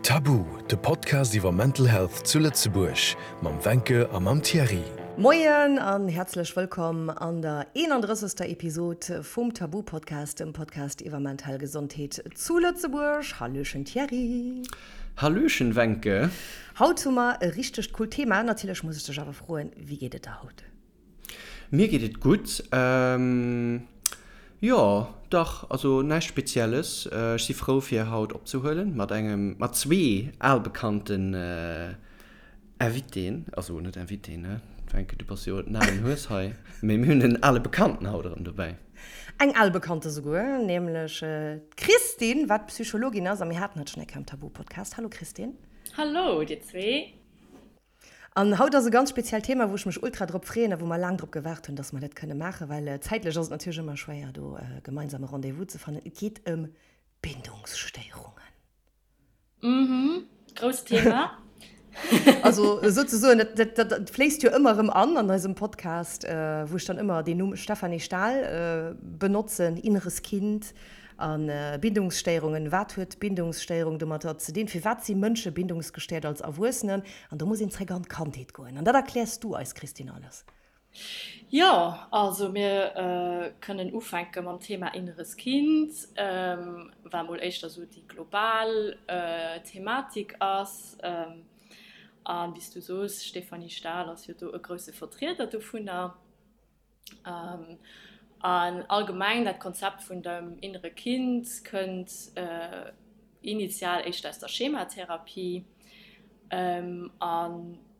Tabu, de Podcast iwwer Mental Health zu Lëtzebuerg mam Wencke a mam Thierry. Moien an häerzlech wëllkomm an der 31. Episod vum Tabu Podcast, dem Podcast iwwer mental Gesondheet zu Lëtzebuerg. Hallöchen Thierry. Hallöchen Wencke. Haut hu mer e richtegt coolt Thema. Natierlech muss ech dech awer froen, wéi geet et der haut? Mir geet et gutt. Jo, dach, also näischt Spezielles. Ech si frou fir haut opzehuelen mat engem, mat zwee albekannten Invitéen, also net Invitéen, ne Wencke, du bass jo den alen Hues hei, mee mir hunn en ale Bekannten haut erëm dobäi. Eng al Bekannte souguer, nämlech d'Christine, wat Psychologin ass a mir haten hatt schonn eng Kéier am Tabu-Podcast. Hallo Christine. Hallo dir zwee. An haut ass e ganz speziellt Thema, wou ech mech ultra drop freeën a wou mer laang drop gewaart hunn, dass mer dat kënne maachen, well zäitlech ass et natierlech ëmmer schwéier, do e gemeinsame Rendez-vous ze fannen. Et geet ëm Bindungsstéierungen. Mhm, grousst Thema. Also souzesoen, dat, dat, dat, dat fléisst jo ëmmer erëm an an eisem Podcast, wou ech dann ëmmer deen Numm Stephanie Stahl benotzen, inneres Kind, A Bindungsstéierungen, Wat huet Bindungsstéierung domatter ze dinn? Firwat si Mënsche bindungsgestéiert als Erwuessenen? An do muss een zréck an d'Kandheet goen. An dat erkläers du eis, Christine, alles. Jo, also mir kënnen ufänke mam Thema inneres Kind, wat mol éischter esou déi global Thematik ass. A wéi s du soos, Stéphanie Stahl ass jo do e grousse Vertrieder dovunner. An allgemeng dat Konzept vun dem innere Kind kënnt initial éischter aus der Schematherapie. An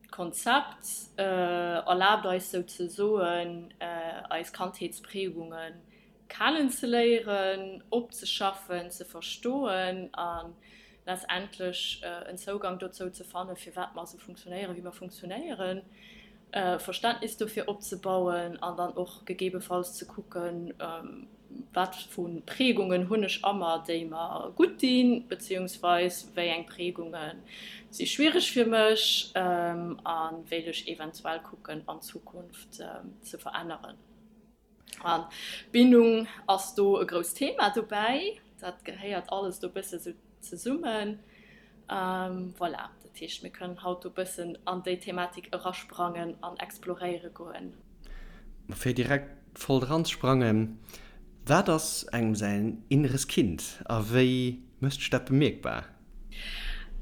d'Konzept erlaabt eis souzesoen eis Kandheetsprägunge kennenzeléieren, opzeschaffen, ze verstoen a letztendlech en Zougang dozou ze fannen, firwat mer esou funktionéieren, wéi mer funktionéieren, Verständnis dofir opzebauen an dann och gegebenfalls ze kucken, wat vu Prägungen hunn ech a mer, déi mer gutt dinn, beziehungsweis wéi eng Prägunge si schwiereg fir mech a wéilt ech eventuell kucken an Zukunft ze veränneren. An Bindung ass do e grousst Thema dobäi. Dat gehéiert alles do bësse sou zesummen. Voilà, dat heescht, mir kënnen haut do bëssen an déi Thematik erasprangen an exploréiere goen. Fir direkt voll dran ze sprangen, Wat ass engem säin inneres Kind a wéi mécht sech dat bemierkbar?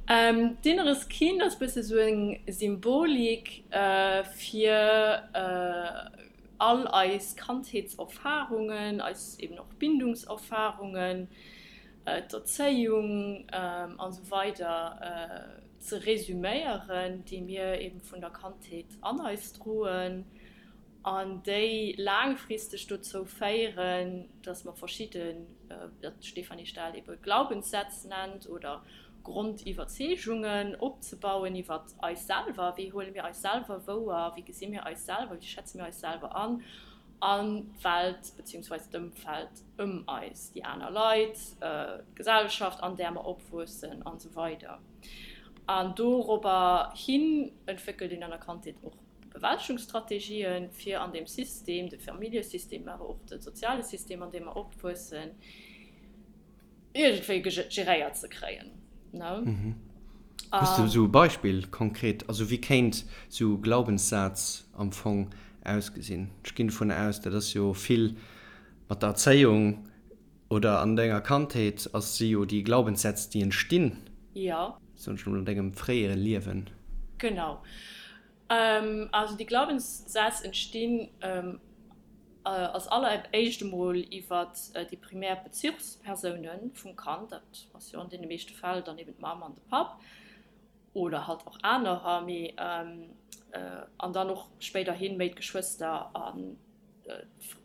D'inneres Kind ass bësse sou eng Symbolik fir all eis Kandheetserfarungen, eis eben och Bindungserfarungen, d'Erzéiung an esou weider ze resüméieren, déi mir eben vun der Kandheet an eis droen an déi laangfristeg dozou féieren, dass mer verschidden, wat d'Stéphanie Stahl ebe Glaubenssätz nennt oder Grondiwwerzeegungen opzebauen iwwer eis selwer, wéi huele mir eis selwer wouer, wéi gesi mir eis selwer, wéi schätze mir eis selwer an, an d'Welt beziehungsweise d'Ëmfeld ëm eis, déi aner Leit, d'Gesellschaft an där mer opwuessen an esou weider. An dorobber hin entwéckelt een an der Kandheet och Bewältegungsstrategien, fir an deem System, de Familljesystem, awer och de soziale System, an deem mer opwuessen, iergendwéi geréiert ze kréien. Ne? Hues de esou e Beispill konkret? Also wéi kéint esou e Glaubenssaz am Fong ausgesinn? Ech ginn dovun aus, dat ass jo vill mat der Erzéiung oder an denger Kandheet ass si jo déi Glaubenssätz déi entstinn, Jo. soen ech emol, an dengem fréiere Liewen. Genau. Also déi Glaubenssätz entstinn als alleréischt emol iwwer déi primär Bezuchspersoune vum Kand, dat ass jo an deene meeschte Fäll dann eben d'Mamm an de Papp oder halt och anerer, mee an dann och spéiderhi méi d'Geschwëster an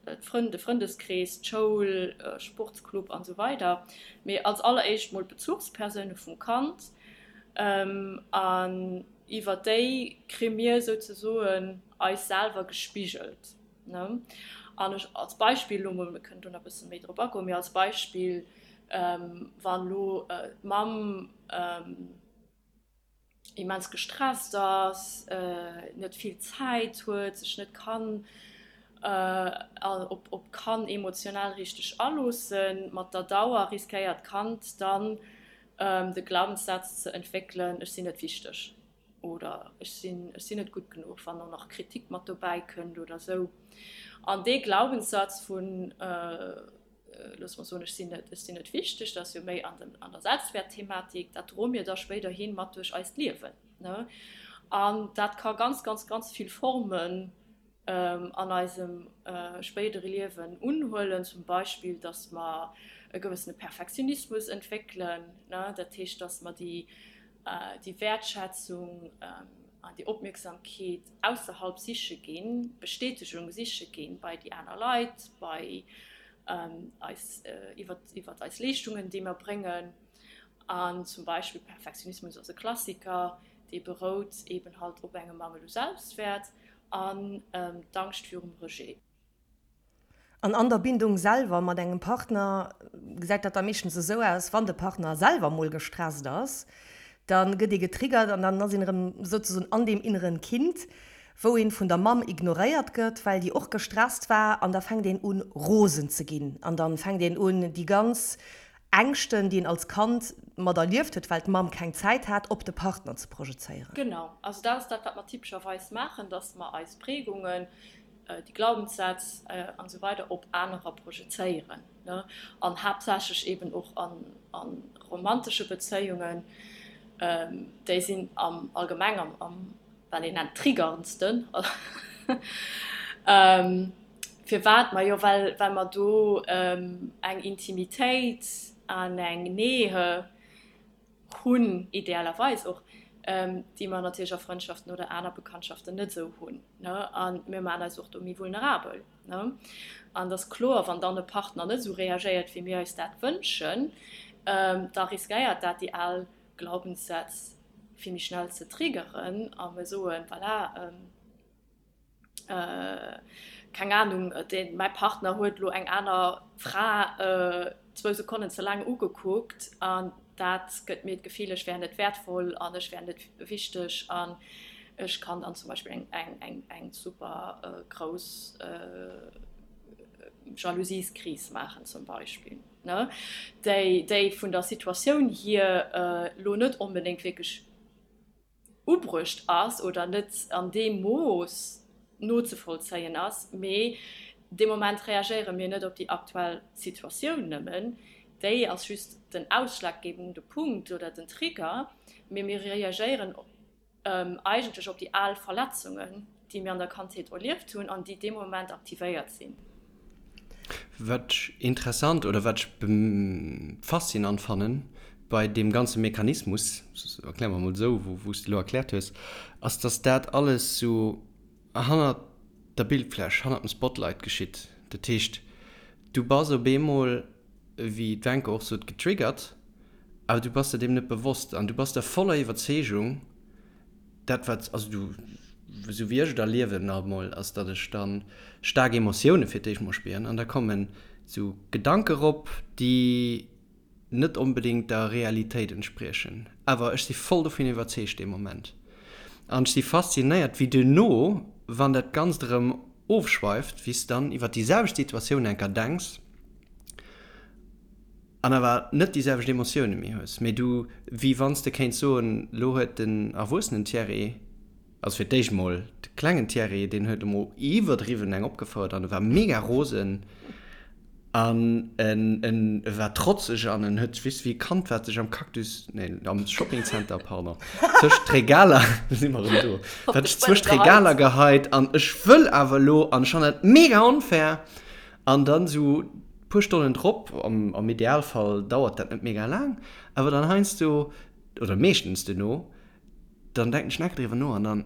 d'Frënn, de Frëndeskrees, d'Schoul, Sportsclub an esou weider. Mee als alleréischt mol d'Bezuchspersoune vum Kand an iwwer déi kri mir souzesoen eis selwer gespigelt. Ne? An ech als Beispill elo mol, mir kënnen do nach e bësse méi drop agoen, mee als Beispill, wann elo d'Mamm immens gestresst ass, net vill Zäit huet, sech net kann op d'Kand emotional richteg aloossen, mat der Dauer riskéiert d'Kand dann. De Glaubenssaz ze entwéckelen, ech sinn net wichteg oder ech sinn, ech sinn net gutt genuch, wann och nach Kritik mat dobäi kënnt oder esou. An dee Glaubenssaz vun, loosse mer soen, ech sinn net, ech sinn net wichteg, dat ass jo méi an den, an der Selbstwäertthematik, dat droe mir da spéiderhi mat duerch eist Liewen, ne? An dat ka ganz, ganz, ganz vill Formen an eisem spéidere Liewen unhuelen, zum Beispill, dass mer e gewëssene Perfektionismus entwéckelen, dat heescht, dass mer déi Wäertschätzung an déi Opmierksamkeet ausserhalb siche ginn, Bestätegung siche ginn bei déi aner Leit, bei eis, iwwert eis Leeschtungen, déi mer bréngen. An zum Beispill Perfektionismus ass e Klassiker, dee berout eben halt op engem Mangel u Selbstwäert. An d'Angscht virum Rejet. An an der Bindung selwer mat engem Partner gesäit dat da meeschtens esou aus, wann de Partner selwer mol gestresst ass, da gëtt ee getriggert an dann ass een erëm souzesoen an deem inneren Kind, wou een vun der Mamm ignoréiert gëtt, well déi och gestresst war an da fänkt een un rosen ze ginn an dann fänkt een un déi ganz Ängschten, déi een als Kand mat erlieft huet, well d'Mamm keng Zäit hat, op de Partner ze projezéieren. Genau, also dat ass dat, wat mer typescherweis maachen, dass mer eis Prägungen, déi Glaubenssätz an esou weider op anerer projezéieren, ne, an haaptsächlech eben och a romantesche Bezéiungen, déi sinn am Allgemeng am wat een nennt triggerndsten. Firwat? Majo well well mer do eng Intimitéit an eng Nähe hunn, idealerweis och, déi mer natierlech a Frëndschaften oder aner Bekanntschaften net esou hunn, ne? A mir maachen eis och do méi vulnerabel, ne? An et ass kloer, wann dann e Partner net esou reagéiert, wéi mir eis dat wënschen, da riskéiert dat déi al Glaubenssätz vill méi schnell ze triggeren a mir soen, voilà, keng Ahnung, deen, mäi Partner huet elo eng aner Fra zwou Sekonnen ze laang ugekuckt an dat gëtt mir d'Gefill, ech wär net wäertvoll an ech wär net wichteg an ech kann dann zum Beispill eng, eng, eng, eng super grouss Jalousieskris maachen zum Beispill, ne, déi, déi vun der Situatioun hier elo net onbedéngt wierklech ubruecht ass oder net an deem Mooss nozevollzéien ass, mee dee Moment reagéiere mir net op déi aktuell Situatioun nëmmen, déi ass just den ausschlaggebende Punkt oder den Trigger, mee mir reagéieren eigentlech op déi al Verletzungen, déi mir an der Kandheet erlieft hunn an déi dee Moment aktivéiert sinn. Wat ech interessant oder wat ech faszinant fannen bei deem ganze Mechanismus, erkläre mer emol esou, wou s de elo erkläert hues, ass, dass dat alles sou hannert der Bildfläch, hannert dem Spotlight geschitt. Dat heescht, du bass op eemol, wéi d'Wencke och sot, getriggert, awer du bass der deem net bewosst an du bass der voller Iwwerzeegung, Dat wat, also du, esou wéi ech et erliewen nach emol, ass datt ech da staark Emotioune fir d'éischt mol spieren an da kommen esou Gedanke rop, déi net onbedéngt der Realitéit entspriechen. Awer ech si voll dovun iwwerzeegt dee Moment. An ech si faszinéiert, wéi duerno, wann dat Ganzt erëm ofschweift, wéi s de dann iwwer déi selwecht Situatioun enker denks, An awer net déi selwecht Emotioune méi hues, mee du, wéi wann s de kéints soen, lo huet den erwuessenen Thierry, also fir d'éischt mol de klengen Thierry, deen huet emol iwwerdriwwen eng opgefouert an e war mega rosen an en en war trotzeg an en huet, weess de, wéi e Kand, wat sech am Cactus, nee, am Shoppingcenter, pardon, tëscht d'Regaler, do si mer erëm do, wat sech zwëscht d'Regaler geheit an ech wëll awer elo an ech fannen dat mega onfair an dann esou Puer Stonnen drop, am Idealfall dauert dat net mega laang, awer dann heiansdo, oder meeschtens duerno, dann denken ech nach driwwer no an dann,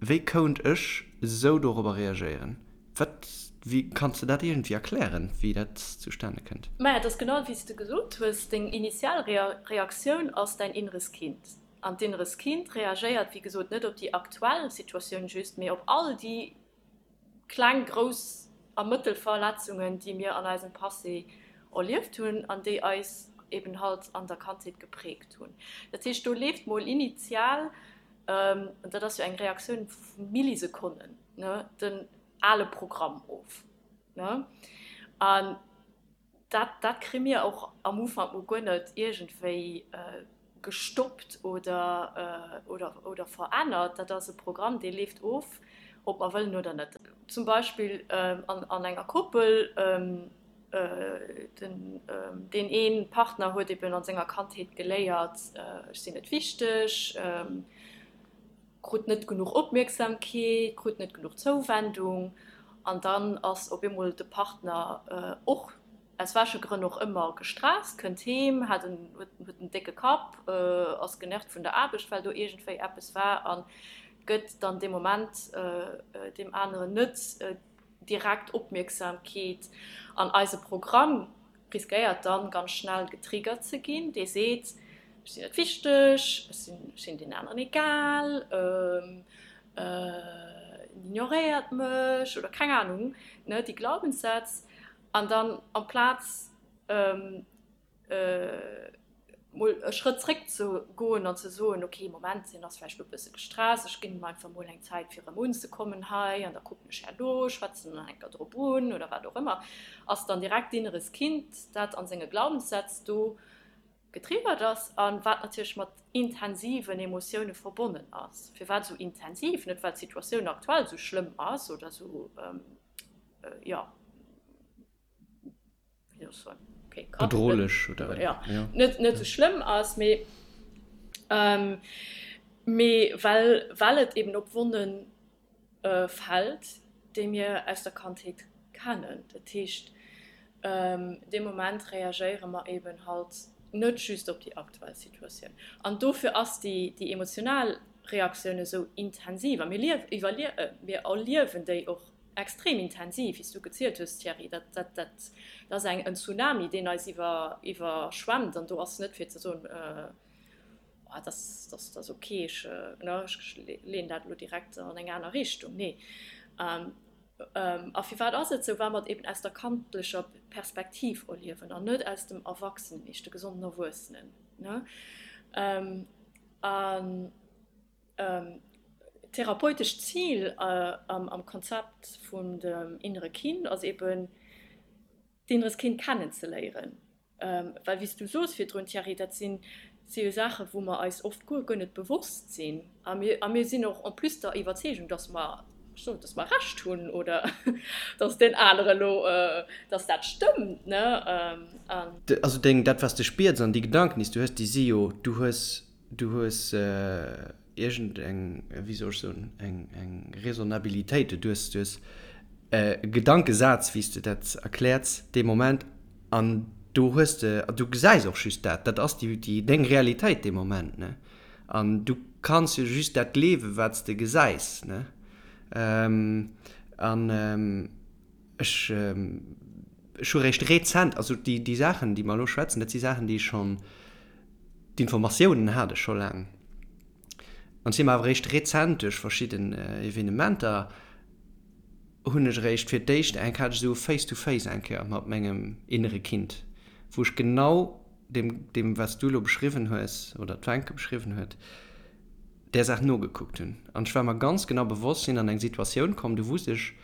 wéi kount ech esou dorobber reagéieren? Wat, wéi, kanns de dat iergendwéi erklären, wéi dat zustane kënnt? Maja, et ass genau wéi s de gesot hues, deng initial Reaktioun ass däin inneres Kind. An d'inneres Kind reagéiert, wéi gesot, net op déi aktuell Situatioun just, mee op all déi kleng, grouss a mëttel Verletzungen, déi mir an eisem Passé erlieft hunn an déi eis eben halt an der Kandheet geprägt hunn. Dat heescht, do leeft mol initial, an dat ass jo eng Reaktioun vu Millisekonnen, ne, den ale Programm of, ne. An. Dat, dat kri mir och am Ufank mol guer net iergendwéi gestoppt oder, oder, oder verännert. Dat ass e Programm, dee leeft of, ob mer wëllen oder net. Zum Beispill an, an enger Koppel, den, deen ee Partner huet eben an senger Kandheet geléiert, ech sinn net wichteg, krut net genuch Opmierksamkeet, krut net genuch Zouwendung an dann ass op eemol de Partner och, aus welche Grënn och ëmmer, gestresst, kënnt heem, hat en, huet en décke Kapp, ass genervt vun der Aarbecht, well do iergendwéi eppes war a gëtt dann dee Moment deem aneren net direkt Opmierksamkeet an eise Programm riskéiert dann ganz schnell getriggert ze ginn, dee seet, ech sinn net wichteg, ech sinn, ech sinn den aneren egal, en ignoréiert mech oder keng Ahnung, ne, déi Glaubenssätz. An dann amplaz mol e Schrëtt zréck ze goen an ze soen, ok, Moment, hien ass vläicht elo e bësse gestresst, ech ginn him einfach mol eng Zäit fir erëm unzekommen hei an da kucken ech herno, schwätzen en eng Kéier drop un oder wat och ëmmer, ass dann direkt d'inneres Kind, dat an senge Glaubenssätz do getriggert ass a wat natierlech mat intensiven Emotioune verbonnen ass. Firwat esou intensiv? Net well d'Situatioun aktuell esou schlëmm ass oder esou, jo, Bedrohlech oder ja, ja. Net, net sou schlëmm ass, mee ähm, mee well, well et eben op Wonnen äh, fält, déi mir aus der Kandheet kennen. Dat heescht, ähm, dee Moment reagéiere mer eben halt net just op déi aktuell Situatioun. An dofir ass déi, déi emotional Reaktioun esou intensiv a mir liew, iwwerlie, äh, mir erliewen déi och Extrem intensiv, wéi s du gezielt hues, Thierry. Dat, dat, dat ass eng, en Tsunami, deen eis iwwer, iwwerschwemmt. An do ass net fir ze soen, Oh, dat ass, dat ass ok, ech, ne, ech leeën dat elo direkt an eng aner Richtung. Nee. A firwat ass et esou? Well mer et eben aus der kandlecher Perspektiv erliewen an net aus dem Erwachsenen-Ich, de gesonden Erwuessenen, ne. An. D'therapeutescht Zil am Konzept vun dem innere Kind ass eben, d'inneres Kind kennenzeléieren. Well wéi s du soos virdrun, Thierry, dat si jo Saachen, wou mer eis oft guer guer net bewosst sinn. A mir, a mir sinn och en plus der Iwwerzeegung, dass mer, ech soen, dass mer Recht hunn oder dass deen anere elo, dass dat stëmmt, ne? An. Also deng, dat wat s de spiers an déi Gedanken, déi s du hues, déi si jo, du hues Du hues iergend eng, wéi soll ech soen, eng, eng Raisonnabilitéit. Du hues, du hues e Gedankesaz, wéi s de dat erkläerts dee Moment, an do hues de, du gesäis och just dat. Dat ass déi, déi, deng Realitéit dee Moment, ne? An du kanns jo just dat gleewen, wat s de gesäis, ne? An ech, ech hu réischt rezent, also déi, déi Saachen, déi mer elo schwätzen, dat si Saachen, déi ech schonn, D'Informatiounen hat ech scho laang. An si mer awer eréischt rezent duerch verschidden Evenementer hunn ech eréischt fir d'éischt eng, hat ech esou e Face-to-face eng Kéier mat mengem innere Kind, wou ech genau deem, deem wat s du elo beschriwwen hues oder d'Wencke beschriwwen huet, där Saach nogekuckt hunn. An ech war mer ganz genau bewosst, sinn an eng Situatioun komm, do wusst ech,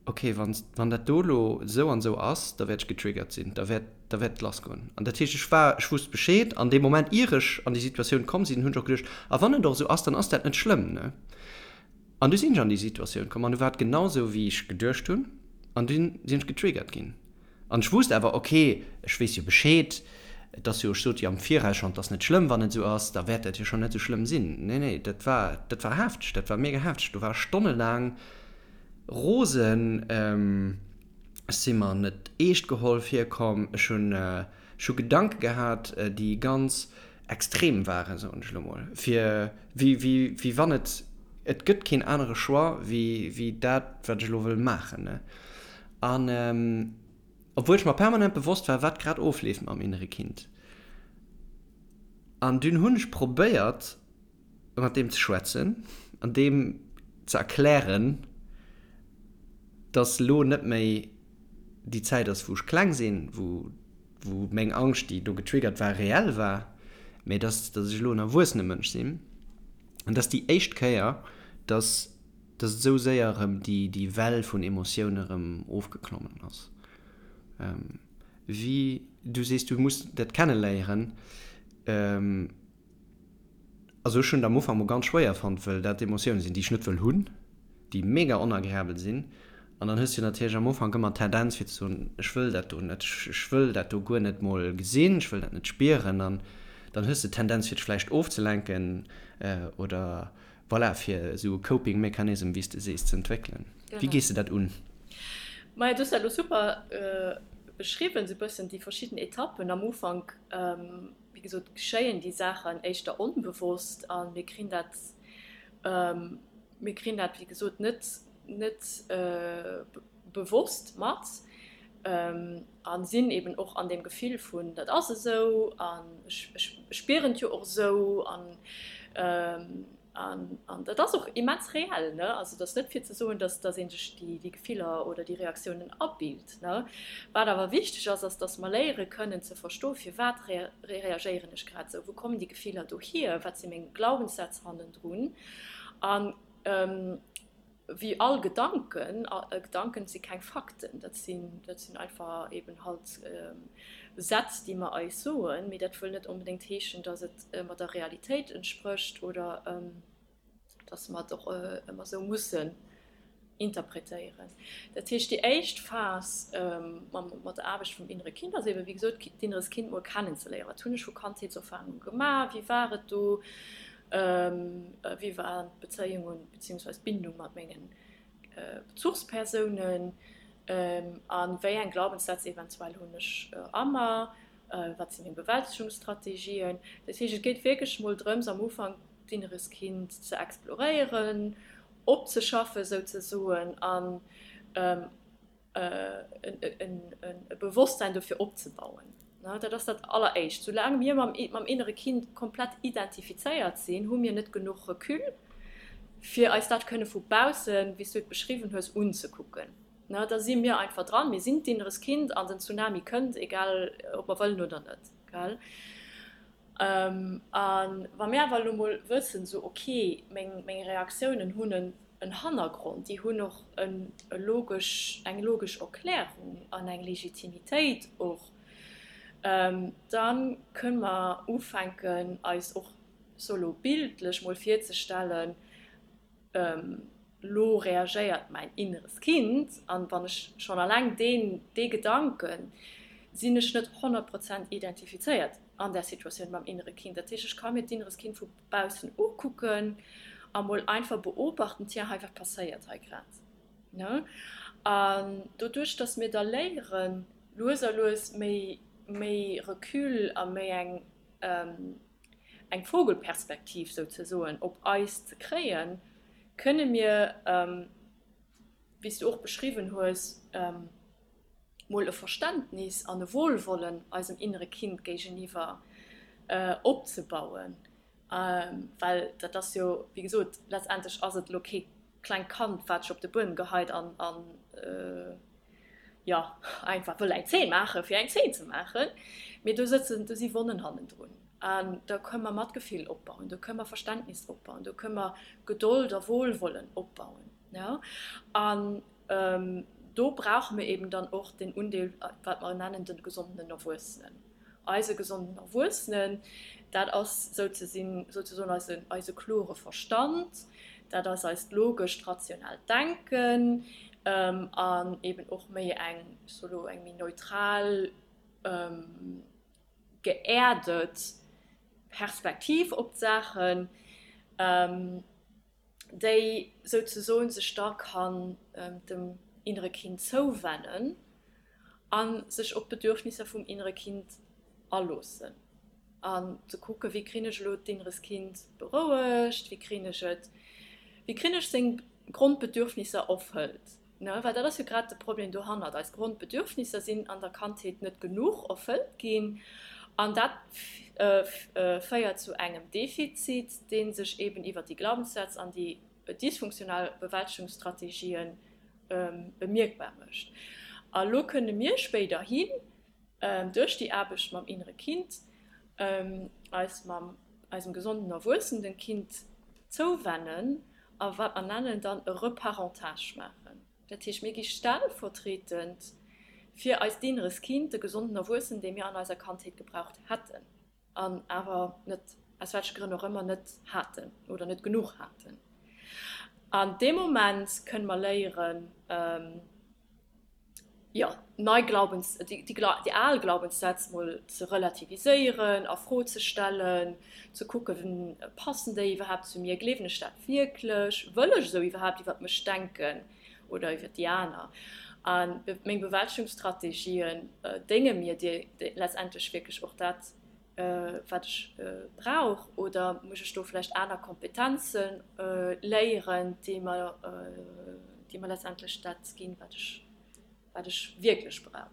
ok, wann, wann dat do elo esou an esou ass, da wäert ech getriggert sinn, da wäert, da wäert et lassgoen. An dat heescht, ech war, ech wusst Bescheed an deem Moment, ier ech an déi Situatioun komm sinn, hunn ech och geduecht, a wann et och esou ass, dann ass dat net schlëmm, ne? An du sinn ech an déi Situatioun komm an du war et genau esou, wéi ech geduecht hunn an dunn sinn ech getriggert ginn. An ech wusst awer, ok, ech weess jo Bescheed, et ass jo, ech sot jo am Viraus schonn, et ass net schlëmm, wann et esou ass, da wäert dat jo schonn net esou schlëmm sinn. Nee, nee, dat war, dat war hefteg, dat war mega hefteg. Do war ech stonnelaang rosen, ech si mer net eescht geholl virkomm, ech hunn, ech hu Gedanke gehat, déi ganz extrem waren, soen ech elo mol, fir wéi, wéi, wéi wann et, et gëtt keen anere Choix wéi, wéi dat, wat ech elo wëll maachen, ne. An obwuel ech mer permanent bewosst war, wat grad ofleeft mam innere Kind. An dunn hunn ech probéiert, mat deem ze schwätzen an deem ze erklären, dass elo net méi déi Zäit ass, wou ech kleng sinn, wou, wou meng Angscht, déi do getriggert war, reell war, mä dass, dass ech elo en erwuessene Mënsch sinn. An dass déi éischt Kéier, dass dass et esou séier erëm déi, déi Well vun Emotioune erëm ofgeklommen ass. Wéi du sees, du muss dat kenneléieren. Also ech hunn et am Ufank mol ganz schwéier fonnt, wëll dat Emotioune sinn, déi ech net wëll hunn, déi mega onagreabel sinn. An dann hues du natierlech am Ufank ëmmer d'Tendenz fir ze soen, ech wëll dat do net, ech wëll dat do guer net mol gesinn, ech wëll dat net spieren. An dann hues de d'Tendenz fir dech vläicht ofzelenken oder voilà, fir esou e Coping Mechanism, wéi s de sees, ze entwéckelen. Wéi gees de dat un? Maja, du hues dat elo super beschriwwen, esou e bëssen déi verschidden Etappen. Am Ufank, wéi gesot, geschéien déi Saachen éischter onbewosst a mir krin dat, mir krin dat, wéi gesot, net, net bewosst mat a sinn eben och an deem Gefill vun, dat ass esou an ech spieren et jo och esou an an dat ass och immens reell. Ne? Also et ass net fir ze soen, dass dass ee sech déi déi Gefiller oder déi Reaktiounen abilt. Ne? Wat awer wichteg ass, ass, dass mer léiere kënnen ze verstoen, firwat reagéieren ech grad esou, wou kommen déi Gefiller dohier, wat si meng Glaubenssätz hannendrun an Wéi all Gedanken, Gedanken si keng Fakten, dat sinn, dat sinn einfach eben halt Sätz, déi mer eis soen, mee dat wëll net onbedéngt heeschen, datt et ëmmer der Realitéit entsprécht oder datt mer et och ëmmer esou mussen interpretéieren. Dat heescht, déi éischt Phas mat der Aarbecht vum innere Kind ass eben, wéi gesot, d'inneres Kind mol kennenzeléieren. Wat hunn ech vu Kandheetserfarunge gemaach? Wéi war et do? Wéi waren d'Bezéiungen beziehungsweise d'Bindung mat mengen Bezuchspersounen a wéi eng Glaubenssätz eventuell hunn ech a mer? Wat si meng Bewältegungsstrategien? Dat heescht, et geet wierklech mol drëms am Ufank d'inneres Kind ze exploréieren, opzeschaffen souzesoen an e Bewosstsein dofir opzebauen. Dat ass dat Alleréischt. Soulaang mir mam innere Kind komplett identifizéiert sinn, hu mir net genuch Recul, fir eis dat kënne vu baussen, wéi s du et beschriwwen hues, unzekucken. Da si mir einfach dran, mir sinn d'inneres Kind an den Tsunami kënnt, egal ob mer wëllen oder net. A wa mir awer elo mol wëssen, esou ok, meng Reaktiounen hunn en Hannergrond, déi hunn och e logesch, eng logesch Erklärung an eng Legitimitéit och, da kënne mer ufänken eis och sou elo bildlech mol virzestellen, Lo reagéiert mäin inneres Kind, an wann ech schonn alleng deen, dee Gedanken, sinn ech net 100 Prozent identifizéiert an där Situatioun mam innere Kind. Dat heescht, ech ka mir d'inneres Kind vu baussen ukucken a mol einfach beobachten, tiens, hei, wat passéiert hei grad, ne? An doduerch, dass mir da léieren, lues a lues méi, méi Recul a méi eng, eng Vogelperspektiv souzesoen op eis ze kréien, kënne mir, wéi s du och beschriwwen hues, mol e Verständnis an e Wohlwollen eisem innere Kind géigeniwwer opzebauen. Well dat ass jo, wéi gesot, letztendlech ass et elo kee klengt Kand, wat sech op de Buedem geheit an, jo, einfach wëll eng Zeen maachen, fir eng Zeen ze maachen, mee do sëtzen, do si Wonnen hannendrun. An da kënne mer Matgefill opbauen, do kënne mer Verständnis opbauen, do kënne mer Gedold a Wohlwollen opbauen. Jo. An do brauche mir eben dann och den Undeel, wat mer nennen de gesonden Erwuessenen. Eise gesonden Erwuessenen, dat ass souzesoen eise klore Verstand, dat ass eist logescht, rationellt Denken an eben och méi eng, ech soe lo, eng méi neutral, geerdet Perspektiv op d'Saachen. déi souzesoen sech da kann dem innere Kind zouwennen a sech op d'Bedürfnisser vum innere Kind aloossen an ze kucken, wéi krin ech elo d'inneres Kind berouegt, wéi krin ech et, wéi krin ech seng Grondbedürfnisser erfëllt. Ne, well dat ass jo grad de Problem dohannert, eis Grondbedürfnisser sinn an der Kandheet net genuch erfëllt ginn an dat féiert zu engem Defizit, dee sech eben iwwert déi Glaubenssätz an déi dysfunktional Bewältegungsstrategien bemierkbar mécht. A lo kënne mir spéiderhin duerch déi Aarbecht mam innere Kind eis mam eisem gesonden erwuessenen Kind zouwennen a wat mer nennen dann e Reparentage maachen. Dat heescht, mir gi stellvertretend Fir eist inneres Kind, de gesonden Erwuessenen, dee mir an eiser Kandheet gebraucht hätten an awer net, aus welche Grënn och ëmmer, net haten oder net genuch haten. An dee Moment kënne mer léieren, jo, nei Glaubens, déi, déi al Glaubenssätz mol ze relativiséieren, a Fro ze stellen, ze kucken, passen déi iwwerhaapt zu mir, gleewen ech dat wierklech, wëll ech esou iwwerhaapt iwwert mech denken oder iwwert déi aner? A meng Bewältegungsstrategien dénge mir déi letztendlech wierklech och dat, wat ech brauch, oder muss ech do vläicht aner Kompetenze léieren, déi mer, déi mer letztendlech dat ginn, wat ech, wat ech wierklech brauch.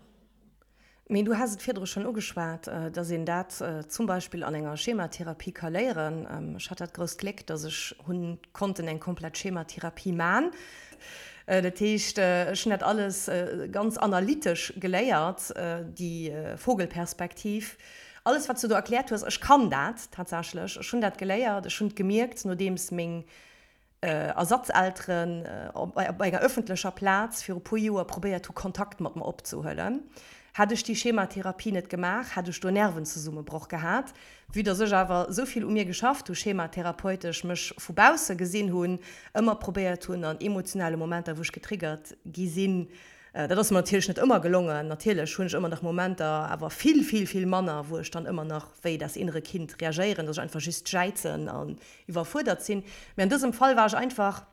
Mee du has et virdru schonn ugeschwat, dass een dat zum Beispill an enger Schematherapie ka léieren. Ech hat dat grousst Gléck, dass ech hunn konnten eng komplett Schematherapie man. Dat heescht, ech hunn dat alles ganz analytesch geléiert, déi Vogelperspektiv, alles wat s du do erkläert hues. Ech kann dat tatsächlech, ech hunn dat geléiert, ech hunn et gemierkt, nodeems meng Ersatzelteren op enger ëffentlecher Plaz viru puer Joer probéiert hu Kontakt mat mer opzehuelen. Hätt ech déi Schematherapie net gemaach, hätt ech do Nervenzesummebroch gehat. Vue dass ech awer esou vill u mir geschafft hu schematherapeutesch, mech vu bausse gesinn hunn, ëmmer probéiert hunn an emotionale Momenter wou ech getriggert gi sinn, dat ass mer natierlech net ëmmer gelongen, natierlech hunn ech ëmmer nach Momenter, awer vill, vill, vill manner, wou ech dann ëmmer nach wéi das innere Kind reagéieren, dass ech einfach just jäizen an iwwerfuerdert sinn. Mee an dësem Fall war ech einfach,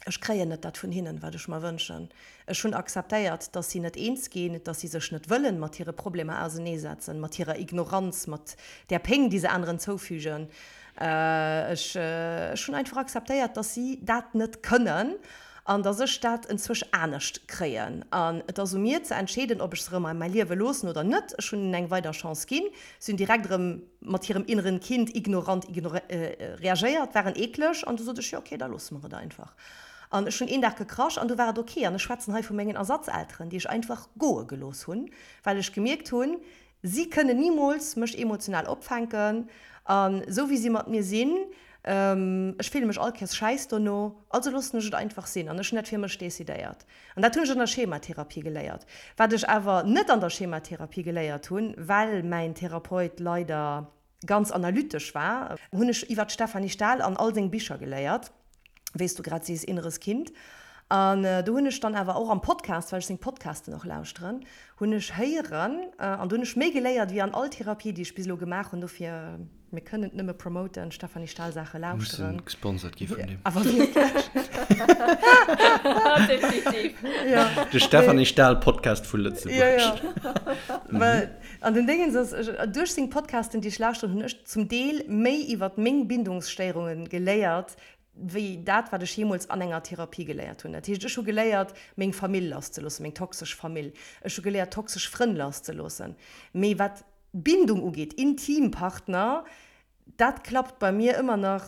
Ech kréien net dat vun hinnen, wat ech mer wënschen. Ech hunn akzeptéiert, dass si net eens ginn, dass si sech net wëllen mat hire Problemer auseneesetzen, mat hirer Ignoranz, mat där Péng, déi se aneren zoufügen. Ech, ech hunn einfach akzeptéiert, dass si dat net kënnen an dass ech dat enzwousch anescht kréien. An et ass u mir ze entscheeden, ob ech se erëm a mäi Liewe loossen oder net. Ech hunn hinnen eng weider Chance ginn. Si hunn direkt erëm mat hirem inneren Kind ignorant reagéiert, waren eekleg an du sot ech, jo ok, da loosse mer et einfach. An ech hunn een Dag gekrasch an du war et ok. An ech schwätzen hei vu mengen Ersatzelteren, déi ech einfach goe gelooss hunn, well ech gemierkt hunn, si kënnen nimools mech emotional opfänken an esou wéi si mat mir sinn, ech fille mech all Kéiers schäiss dono, also loossen ech et einfach sinn. An ech hunn dat fir mech decidéiert. An dat hunn ech an der Schematherapie geléiert. Wat ech awer net an der Schematherapie geléiert hunn, well mäin Therapeut leider ganz analytesch war, hunn ech iwwer d'Stefanie Stahl an all seng Bicher geléiert, wéi s du grad sees, Inneres Kind. An do hunn ech dann awer och am Podcast, well ech seng Podcasten och lauschteren, hunn ech héieren, an do hunn ech méi geléiert wéi an all Therapie, déi ech bis elo gemaach hunn. Dofir. Mir kënnen et nëmme promoten, Stefanie Stahl Saache lauschteren. Mussen gesponsert gi vun deem. Awer wierklech. Definitiv. Ja. De Stefanie Stahl Podcast vu Lëtzebuerg. Ja, ja. Well an den Déngens ass, duerch seng Podcasten, déi ech lauschteren, hunn ech zum Deel méi iwwert meng Bindungsstéierunge geléiert, wéi dat, wat ech jeemools an enger Therapie geléiert hunn. Dat heescht, ech hu geléiert, meng Famill lasszeloossen, meng toxesch Famill. Ech hu geléiert, toxesch Frënn lasszeloossen. Mee wat Bindung ugeet, intim Partner, dat klappt bei mir ëmmer nach,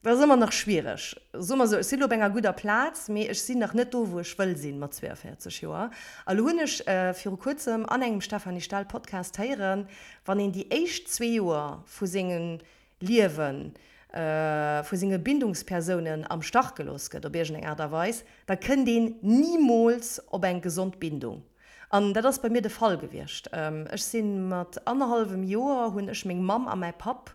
dat ass ëmmer nach schwiereg. Soe mer esou, ech sinn elo op enger gudder Plaz, mee ech sinn nach net do, wou ech wëll sinn mat 42 Joer. A lo hunn ech viru kuerzem an engem Stefanie Stahl Podcast héieren, wann een déi éischt zwee Joer vu sengem Liewen, vu senge Bindungspersounen am Stach gelooss gëtt op iergendeng Aart a Weis, da kënnt een nimools op eng gesond Bindung. An dat ass bei mir de Fall gewiescht. Ech si mat annerhallwem Joer hunn ech meng Mamm a mäi Papp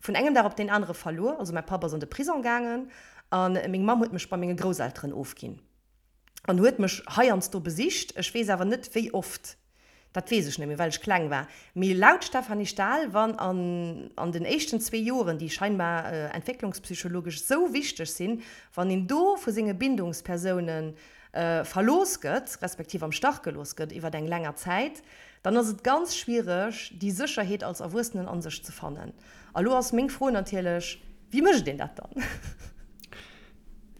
vun engem Dag op deen anere verluer. Also mäi Papp ass an de Prison gaangen a meng Mamm huet mech bei menge Grousselteren ofginn an huet mech heiansdo besicht. Ech weess awer net wéi oft. Dat weess ech net méi, well ech kleng war. Mee laut Stefanie Stahl, wann an an den éischten zwee Joren, déi scheinbar entwécklungspsychologesch sou wichteg sinn, wann een do vu senge Bindungspersoune verlooss gëtt, respektiv am Stach gelooss gëtt iwwer eng länger Zäit, dann ass et ganz schwiereg, déi Sécherheet als Erwuessenen an sech ze fannen. A lo ass meng Fro natierlech, Wéi mécht een dat dann?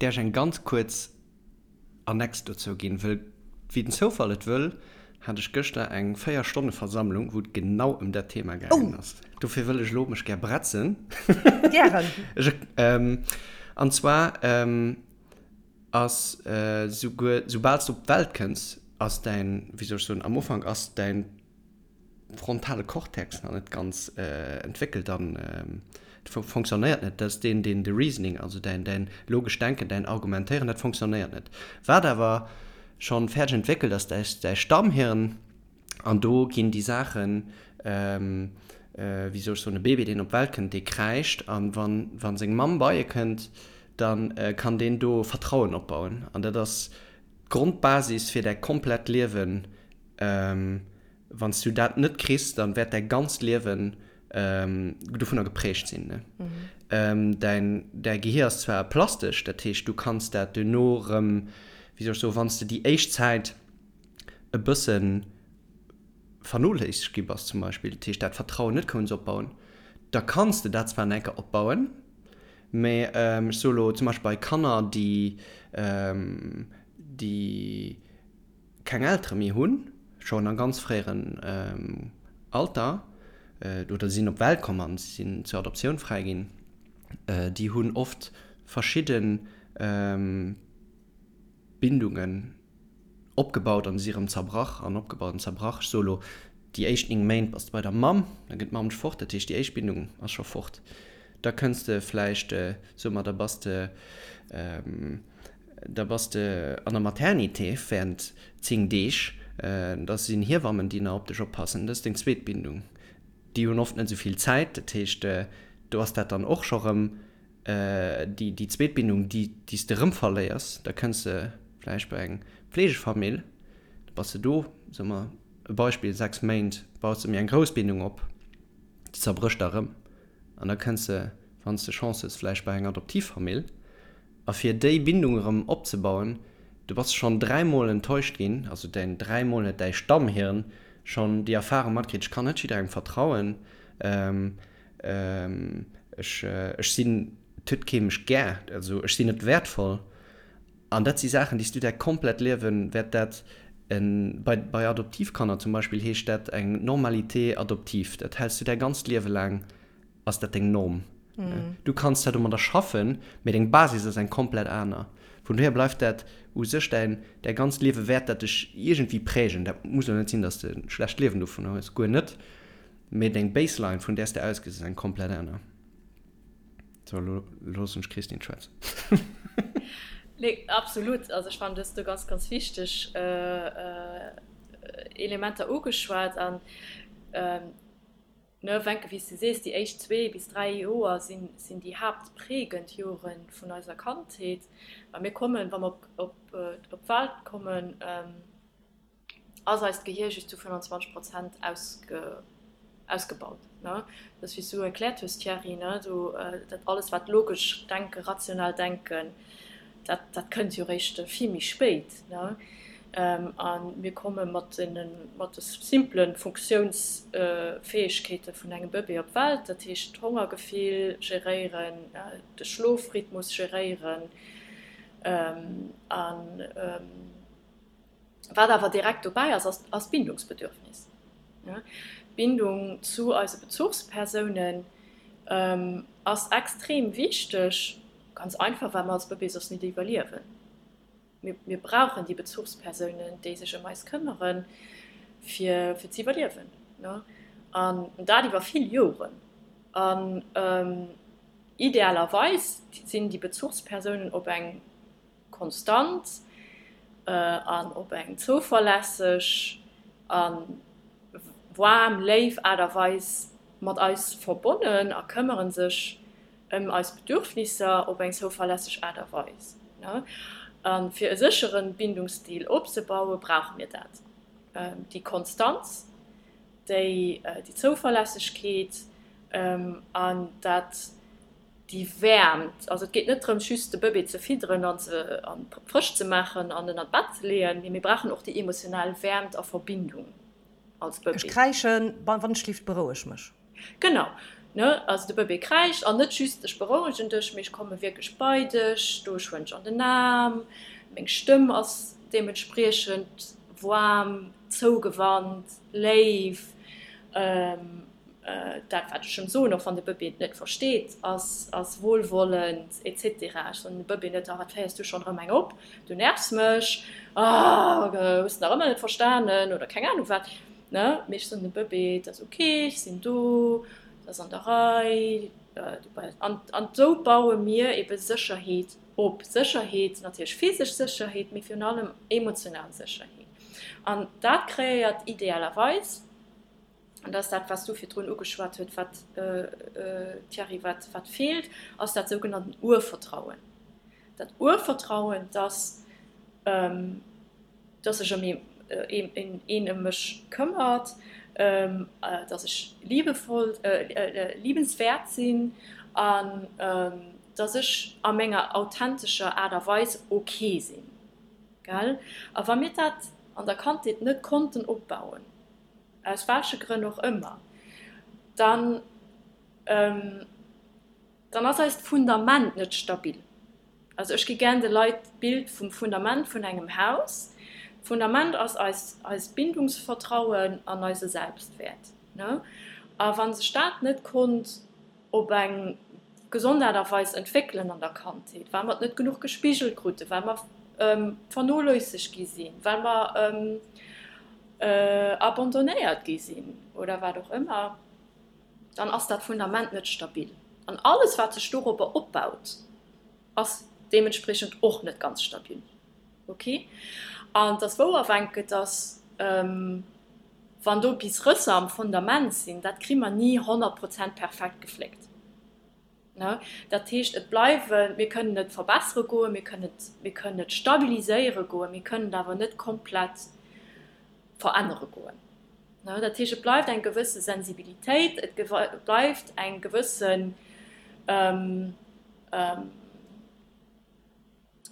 Däerf ech eng ganz kuerz Annex dozou ginn, wëll wéi den Zoufall et wëll, hat ech gëschter eng 4 Stonne Versammlung, wou et genau ëm dat Thema gaangen ass. Dofir wëll ech elo mech gär bretzen. Gären. Ech, an zwar ass souguer, soubal s de op d'Welt kënns, ass däin, wéi soll ech soen, am Ufank ass däin frontale Cortex nach net ganz entwéckelt an fonctionnéiert net. Dat ass deen, deen de Reasoning, also däin, däin logescht Denken, däin Argumentéieren, dat fonctionnéiert net. Wat awer. schonn fäerdeg entwéckelt ass, däi, däi Stammhirn, an do ginn déi Saachen, wéi soll ech soen, e Bébé, deen op d'Welt kënnt, dee kräischt, an wann, wa seng Mamm bei e kënnt, da kann deen do Vertrauen opbauen. An dat ass d'Grondbasis fir däi komplett Liewen. Wann s du dat net kriss, dann wäert däi ganzt Liewen dovunner geprägt sinn. Däin, däi Gehier ass zwar plastesch, dat heescht, du kanns dat duerno erëm, wéi soll ech soen, wann s de déi éischt Zäit e bësse vernoléissegt gi bass zum Beispill, dat heescht dat Vertrauen net kouns opbauen, da kanns de dat zwar nach eng Kéier opbauen, mä ech soe lo zum Beispill bei Kanner, déi, déi keng Eltere méi hunn, schonn a ganz fréieren Alter, oder si sinn op d'Welt komm an si sinn zur Adoptioun fräiginn, déi hunn oft verschidde Bindungen opgebaut an si erëm zerbrach an opgebaut an zerbrach. Ech soe lo, déi éischt 9 Méint bass de bei der Mamm, da gëtt d'Mamm dech fort, dat heescht déi éischt Bindung ass scho fort. Da kënns de vläicht, soe mer, da bass de, da bass de an der Maternité während 10 Deeg, da sinn Hiewammen, déi nach op dech oppassen, dat ass deng zweet Bindung. Déi hunn oft net esou vill Zäit, dat heescht, do ass dat dann och scho rëm déi, déi zweet Bindung, déi, déi s de rëm verléiers. Da kënns de vläicht bei eng Fleegefamill, da bass de do, soe mer e Beispill, 6 Méint, baus de méi eng grouss Bindung op, déi zerbrécht da rëm an da kënns de, wann s de Chance hues, vläicht bei eng Adoptivfamill. A fir déi Bindung erëm opzebauen, du bass schonn dräimol enttäuscht ginn, also däin dräimol huet däi Stammhirn schonn déi Erfarung matkritt, ech kann net jidderengem vertrauen, ech ech sinn, et huet kee mech gär, also ech sinn net wäertvoll. An dat si Saachen, déi s du däi komplett Liewen wäert dat en, bei bei Adoptivkanner zum Beispill heescht dat eng Normalité adoptive, dat häls du däi ganzt Liewe laang ass dat deng Norm. Du kanns zwar domadder schaffen, mee deng Basis ass eng komplett aner. Vun dohier bleift dat u sech däin, däi ganzt Liewe wäert dat dech iergendwéi prägen. Dat muss elo net sinn, dass de e schlecht Liewen dovunner hues, guer net, mee deng Baseline, vun där s de ausgees, ass eng komplett aner. Sou, elo loossen ech d'Christine schwätzen. Nee, absolut. Also ech fannen, du hues do ganz, ganz wichteg Elementer ugeschwat an, Ne, Wencke, wéi s de sees, déi éischt zwee bis dräi Joer sinn, sinn déi haaptprägend Jore vun eiser Kandheet. Well mir kommen, wa mer op, op, op d'Welt kommen, ass eist Gehier just zu 25 Prozent ausge, ausgebaut. Ne? Dat ass, wéi s du erkläert hues, Thierry, ne, do, dat alles, wat logesch Denken, rational Denken, dat, dat kënnt jo réischt vill méi spéit, ne? A mir komme mat deene, mat de simpele Funktiounsfäegkeete vun engem Bëbee op d'Welt, dat heescht d'Hongergefill geréieren, de Schlofrhythmus geréieren an, Wat awer direkt dobäi ass, ass d'Bindungsbedürfnis. D'Bindung zu eise Bezuchspersounen ass extrem wichteg, ganz einfach, well mer als Bëbee soss nit iwwerliewen. Mir brauchen déi Bezuchspersounen, déi sech ëm eis këmmeren, fir ze iwwerliewen. An dat iwwer vill Joren. An idealerweis sinn déi Bezuchspersounen op eng konstant an op eng zouverlässeg a waarm, léif Aart a Weis mat eis verbonnen a këmmere sech ëm eis Bedürfnisser op eng zouverlässeg Aart a Weis. A fir e séchere Bindungsstil opzebauen, brauche mir dat, déi Konstanz, déi Zouverlässegkeet an dat, déi Wäermt, also et geet net drëms just de Bëbee ze fidderen an ze an frësch ze maachen an en an d'Bett ze leeën, mee mir brauchen och déi emotional Wäermt a Verbindung als Bëbee. Ech kräischen, wann ech schlift, beroueg mech. Genau, ne, also de Bëbee kräischt an net just ech berouegen dech, mee ech komme wierklech bei dech, do ech huelen dech an den Aarm, meng Stëmm ass deementspriechend waarm, zougewannt, léif. Dat, wat ech em soen, och wann de Bëbee et net versteet, ass, ass wohlwollend et cetera. Ech soen dem Bëbee net, Ah, wat féiers du schonn erëm eng op, du nervs mech, ah, hues de nach ëmmer net verstanen oder keng Anung wat, ne? Mee ech soen dem Bëbee, Et ass ok, ech sinn do, et ass an der Rei, du. An, an esou baue mir ebe Sécherheet. Op Sécherheet, natierlech physesch Sécherheet, mee virun allem emotional Sécherheet. An dat kreéiert idealerweis, an dat ass dat, wat s du virdrun ugeschwat huet, wat, Thierry, wat, wat feelt, ass dat sougenannten Urvertrauen. Dat Urvertrauen, dass, dass sech ëm een, een ëm mech këmmert, dass ech liebevoll, liebenswäert sinn an dass ech a menger authentescher Aart a Weis ok sinn. Gell? A wa mir dat an der Kandheet net konnten opbauen, aus welche Grënn och ëmmer, dann, dann ass eist Fundament net stabil. Also ech gi gären de Leit d'Bild vum Fundament vun engem Haus. D'Fundament ass eis, eist Bindungsvertrauen an eise Selbstwäert, ne? A wa sech dat net konnt op eng gesond Aart a Weis entwéckelen an der Kandheet, well mer et net genuch gespigelt kruten, well mer vernoléissegt gi sinn, well mer abandonnéiert gi sinn oder wat och ëmmer, dann ass dat Fundament net stabil. An alles, wat sech dorobber opbaut, ass deementspriechend och net ganz stabil. Ok? An et ass wouer, Wencke, dass wann do bis Rësser am Fundament sinn, dat kri mer ni 100 Prozent perfekt gefléckt. Ne? Dat heescht, et bleiwen, mir kënnen et verbessere goen, mir kënnen et, mir kënnen et stabiliséiere goen, mir kënnen et awer net komplett verännere goen. Ne? Dat heescht, et bleift eng gewësse Sensibilitéit, et bleift eng gewëssen,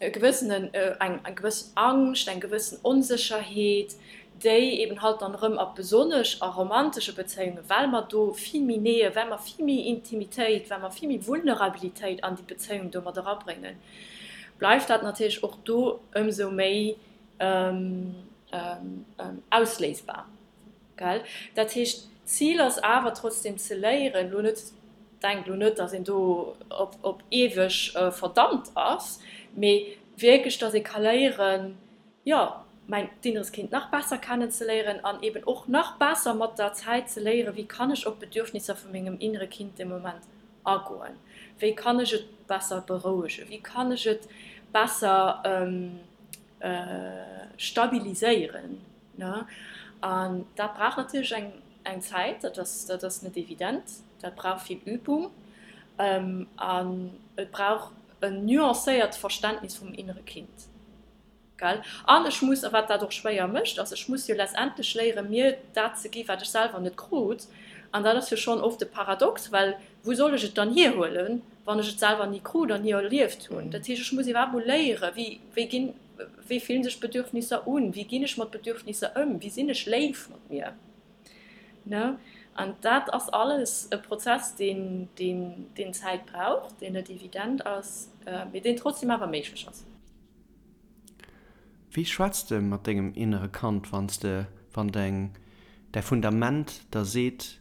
e gewëssenen, eng gewëssen Angscht, eng gewëssen Onsécherheet, déi eben halt dann erëm a besonnesch a romantesche Bezéiungen, well mer do vill méi Nähe, well mer vill méi Intimitéit, well mer vill méi Vulnerabilitéit an déi Bezéiung do mat erabréngen, bleift dat natierlech och do ëmsou méi ausléisbar. Gell? Dat heescht, d'Zil ass awer trotzdem ze léieren, elo net, denkt elo net, datt een do op, op eweg verdammt ass, mee wierklech, datt ee ka léieren, jo, mäin inneres Kind nach besser kennenzeléieren an eben och nach besser mat der Zäit ze léieren, wéi kann ech op d'Bedürfnisser vu mengem innere Kind de Moment agoen, wéi kann ech et besser berouegen, wéi kann ech et besser stabiliséieren. An dat brauch natierlech eng eng Zäit, dat ass dat ass net evident, dat brauch vill Übung an et brauch en nuancéiert Verständnis vum innere Kind. Gell? An ech muss, a wat dat och schwéier mécht, ass, ech muss jo letztendlech léieren, mir dat ze gi wat ech selwer net krut. An dat ass jo schonn oft e Paradox, well wou soll ech et dann hierhuelen, wann ech et selwer ni krut an ni erlieft hunn? Dat heescht, ech muss iwwerhaapt mol léieren, wéi wéi ginn, Wéi fillen sech Bedürfnisser un? Wéi ginn ech mat Bedürfnisser ëm? Wéi sinn ech léif mat mir? Ne? An dat ass alles e Prozess, deen, deen, deen Zäit brauch, deen net evident ass, mee deen trotzdem awer méiglech ass. Wéi schwätz de mat dengem innere Kand, wann s de, wann deng, däi Fundament der seet,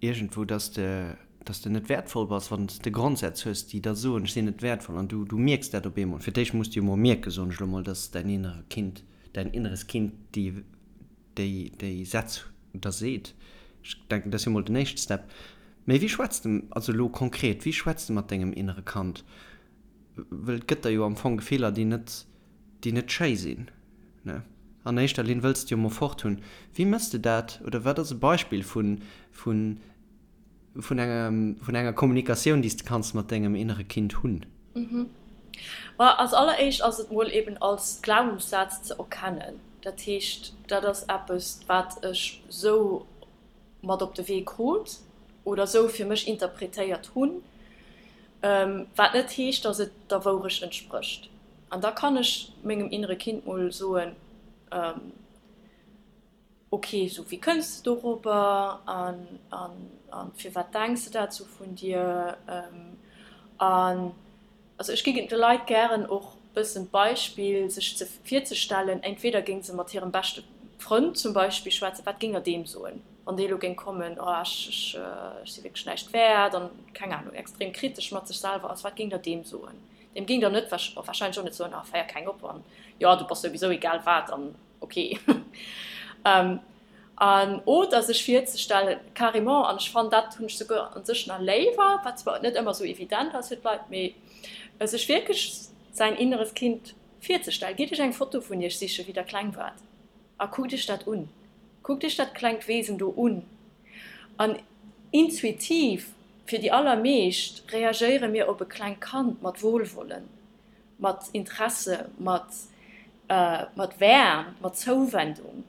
iergendwou, dass de, dass de net wäertvoll bass, wann s de Grondsätz hues, déi der soen, ech sinn net wäertvoll, an du, du mierks dat op eemol. Fir d'éischt muss de jo mol mierken, soen ech elo mol, dass däin innere Kind, däin inneres Kind déi, déi, déi Sätz der seet. Ech denken, dat ass jo mol den éischte Step. Mee wéi schwätz de, also elo konkret, wéi schwätz de mat dengem innere Kand? Well et gëtt der jo am Fong Gefiller, déi net, déi net schéi sinn, ne? An éischter Linn wëlls de jo mol fort hunn. Wéi mëss de dat oder wat ass e Beispill vun, vun, vun engem, vun enger Kommunikatioun, déi s de kanns mat dengem innere Kind hunn? Ma als alleréischt ass et mol eben als Glaubenssaz ze erkennen. Dat heescht, dat ass eppes, wat ech sou mat op de Wee krut oder sou fir mech interpretéiert hunn, wat net heescht, dass et der Wourecht entsprécht. An da kann ech mengem innere Kind mol soen, Ok, sou wéi kënns de dorobber an an firwat denks de dat sou vun dir? An also ech gi de Leit gären och bëssen d'Beispill sech ze virzestellen, entweder géing se mat hirem beschte Frënd zum Beispill schwätzen, wat géing der deem soen, wann dee lo géing kommen, oh ech ech si wierklech näischt wäert an keng Ahnung extrem kritesch mat sech selwer ass, wat géing der deem soen? Deem géing der net wahrscheinlech och net soen, ah féier keng op an jo du bass souwisou egal wat an ok. An, oder sech virzestellen, carrément, an ech fannen, dat hunn ech souguer an sech nach léiwer, wat zwar net ëmmer esou evident ass fir d'Leit, mee sech wierklech säin inneres Kind virzestellen. Gitt iech eng Foto vun iech sichen, wéi der kleng waart, a kuckt iech dat un. Kuckt iech dat klengt Wesen do un. An intuitiv, fir déi allermeescht, reagéiere mir op e klengt Kand mat Wohlwollen, mat Interesse, mat, mat Wäermt, mat Zouwendung.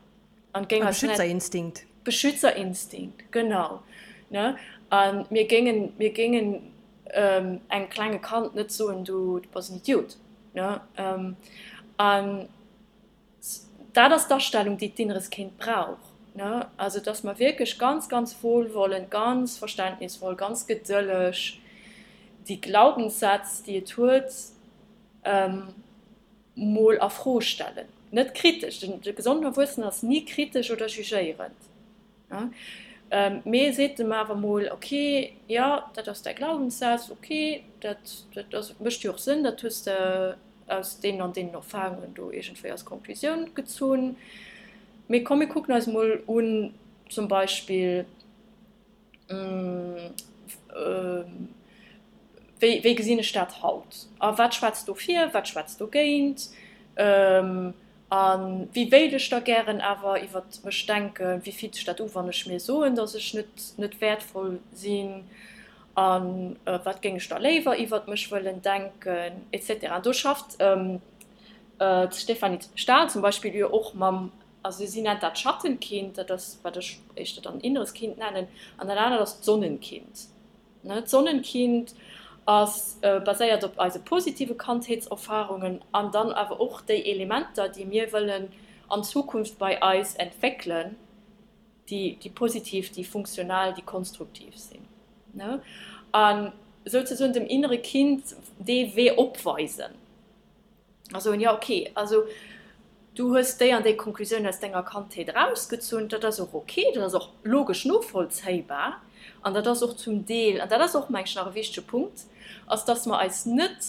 An géing eis net. Beschützerinstinkt. Beschützerinstinkt, genau, ne? A mir géingen, mir géingen engem klenge Kand net soen, du, du bass en Idiot, ne? An dat ass d'Astellung, déi d'inneres Kind brauch, ne? Also, dass mer wierklech ganz, ganz wohlwollend, ganz verständnisvoll, ganz gedëlleg déi Glaubenssätz, déi et huet, mol a Fro stellen. Net kritesch, de gesonden Erwuessenen ass ni kritesch oder jugéierend, mee seet em awer mol, ok, jo, dat ass däi Glaubenssaz, ok, dat dat mécht jo och Sënn, dat hues de aus deenen an deenen Erfarungen do iergendwéi als Konklusioun gezunn, mee komm mir kucken eis mol un zum Beispill, Wéi, wéi gesinn ech dat haut? A wat schwätzt dofir, wat schwätzt dogéint? A wéi wéilt ech da gären awer iwwer mech denken? Wéi fillt sech dat u, wann ech mir soen, datt ech net, net wäertvoll sinn? A wat géing ech da léiwer iwwer mech wëllen denken? Et cetera. An do schafft d'Stéphanie Stahl zum Beispill jo och mam Also si nennt dat Schattenkind, dat ass wat ech éischter dann inneres Kind nennen, an dat anert ass d'Sonnenkind. D'Sonnenkind ass baséiert op eise positive Kandheetserfarungen an dann awer och déi Elementer, déi mir wëllen an Zukunft bei eis entwéckelen, déi positiv, déi funktional, déi konstruktiv sinn. A souzesoen dem innere Kind dee Wee opweisen. A soen, jo ok, also du hues déi an déi Konklusioun aus denger Kandheet erausgezunn, dat ass och ok, dat ass och logesch novollzéibar an dat ass och zum Deel, an dat ass och meng ech nach e wichtege Punkt, ass dass mer eis net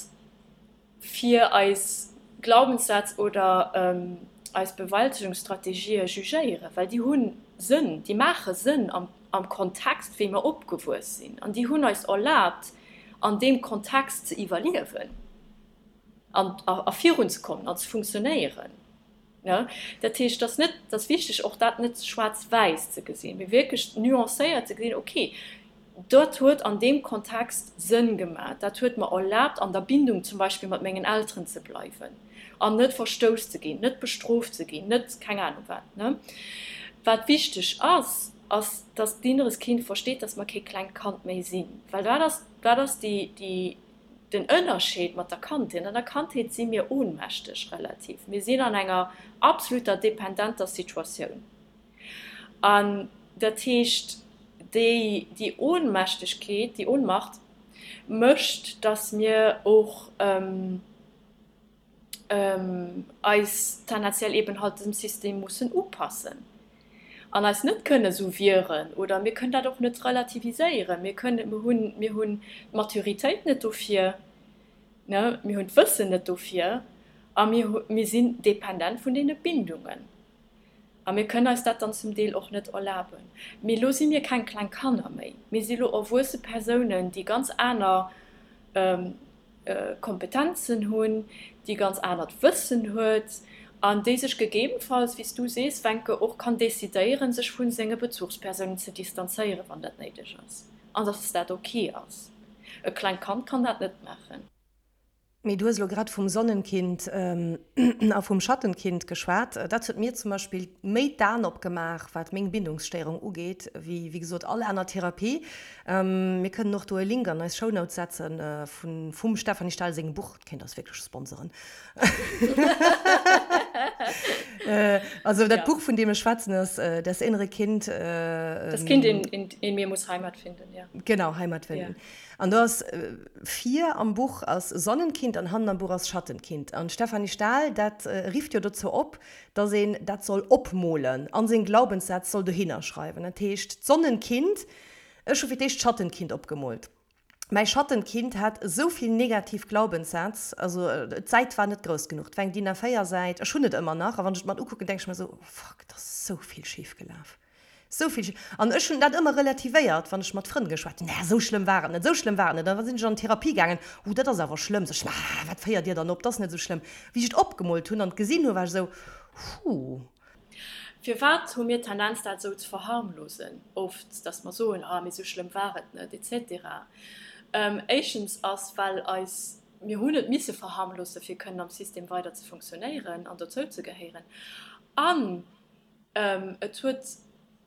fir eis Glaubenssätz oder eis Bewältegungsstrategië jugéieren, well déi hu Sënn, déi maache Sënn am Kontext wéi mer opgewuess sinn an déi hunn eis erlaabt an deem Kontext ze iwwerliewen. an a virunzekommen an ze funktionéieren. Dat heescht, et ass net, et ass wichteg och dat net schwaarz-wäiss ze gesinn, mee wierklech nuancéiert ze gesinn, okay, dat huet an deem Kontext Sënn gemaach, dat huet mer erlaabt an der Bindung zum Beispill mat mengen Elteren ze bleiwen an net verstouss ze ginn, net bestrooft ze ginn, net keng Ahnung wat. Wat wichteg ass, ass, dass d'inneres Kind versteet, dass mer kee klengt Kand méi sinn, well dat ass, dat ass déi, déi, Den Ënnerscheed mat der Kandheet, An der Kandheet si mir ohnmächteg, relativ. Mir sinn an enger absoluter dependenter Situatioun. An dat heescht, déi, déi Ohnmächtegkeet, déi Ohnmacht mécht, dass mir och eis tendenziell eben halt dem System mussen upassen an eis net kënne sou wieren oder mir kënnen dat och net relativiséieren. Mir kënnen, mir hunn, mir hunn d'Maturitéit net dofir, ne, mir hunn d'Wëssen net dofir a mir, mir sinn dependent vun deene Bindungen a mir kënnen eis dat dann zum Deel och net erlaben. Mee elo si mir keng kleng Kanner méi, mir si lo erwuesse Persounen, déi ganz aner Kompetenzen hunn, déi ganz anert Wëssen huet an déi sech gegebenfalls, wéi s du sees, Wencke, och kann decidéieren, sech vu senge Bezuchspersounen ze distanzéieren, wann dat néideg ass, an dass dat ok ass. E klengt Kand kann dat net maachen. Mee du hues elo grad vum Sonnenkind a vum Schattenkind geschwat. Dat huet mir zum Beispill méi d'Aen opgemaach, wat meng Bindungsstéierung ugeet, wéi, wéi gesot, all aner Therapie. Mir kënnen och do e Link an eis Shownotes setzen vun vum Stefanie Stahl sengem Buch. Dat kéint eis wierklech sponsoren. Also dat Buch vun deem ech schwätzen ass Das innere Kind. Das Kind in, in, in mir muss Heimat finden, ja. Genau, Heimat finden. An do ass vir am Buch ass Sonnenkind an hannen am Buch ass Schattenkind. An d'Stefanie Stahl dat rifft jo dozou op, dass een dat soll opmolen an seng Glaubenssätz soll dohinner schreiwen. Dat heescht d'Sonnenkind Ech hu fir d'éischt d'Schattenkind opgemoolt. Mäi Schattenkind hat esou vill negativ Glaubenssätz, also d'Säit war net grouss genuch, et war eng DIN A4 Säit, ech hunn et ëmmer nach a wann ech et mer ukucken, denke ech mer esou, oh fuck, et ass esou vill schif gelaf. Sou vill. An ech hunn dat ëmmer relativéiert, wann ech mat Frënn geschwat hunn, Nä, sou schlëmm war et net, sou schlëmm war et net. An da sinn ech an d'Therapie gaangen, Uh, dat ass awer schlëmm. Sot ech, Mä wat féiert Dir dann op, dat ass net sou schlëmm. Wéi ech et opgemoolt hunn an et gesinn hunn, war ech esou, Huh. Firwat hu mir d'Tendenz, dat esou ze verharmlosen oft, dass mer soen, Ah, mee sou schlëmm war et net, et cetera? Éischtens ass, well eis, mir hunn et misse verharmlosen, fir kënnen am System weider ze funktionéieren an dozou ze gehéieren. An Et huet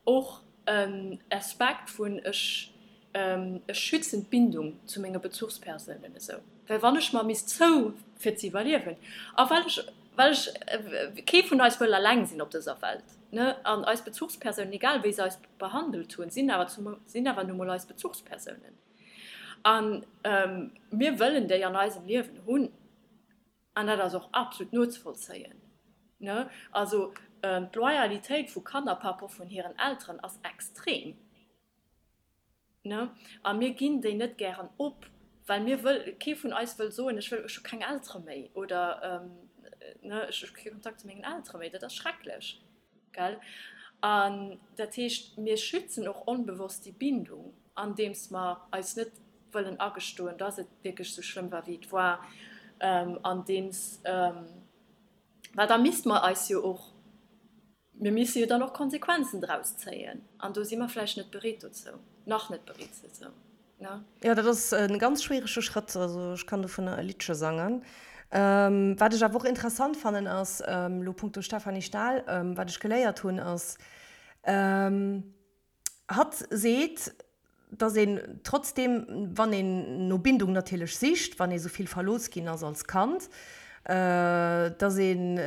och en Aspekt vun ech ech schützen d'Bindung zu menge Bezuchspersounen esou, well wann ech mer misst zou fir ze iwwerliewen a well ech well ech kee vun eis wëll eleng sinn op dëser Welt ne an eis Bezuchspersounen egal wéi se eis behandelt hunn sinn awer zum sinn awer nu mol eis Bezuchspersounen a mir wëllen déi an eisem Liewen hunn. An dat ass och absolut nozevollzéien, ne? Also d'Loyalitéit vu Kanner par rapport vun hiren Elteren ass extrem, ne? A mir ginn déi net gären op, well mir wëll, kee vun eis wëll soen, ech wëll, ech hu keng Eltere méi oder, ne, ech hu kee Kontakt zu mengen Eltere méi. Dat ass schrecklech, gell? An dat heescht, mir schützen och onbewosst déi Bindung, andeems mer eis net wëllen agestoen, dass et wierklech esou schlëmm war, wéi et war, andeems, well da misste mer eis jo och, mir misse jo dann och Konsequenzen draus zéien, an do si mer vläicht net bereet dozou, nach net bereet dozou, ne? Jo, dat ass e ganz schwierege Schrëtt, also ech kann dovunner e Liddche sangen. Wat ech awer och interessant fannen ass, elo punkto Stefanie Stahl, wat ech geléiert hunn ass, Hatt seet, datt een trotzdeem, wann een no Bindung natierlech sicht, wann ee sou vill verlooss ginn ass als Kand, datt een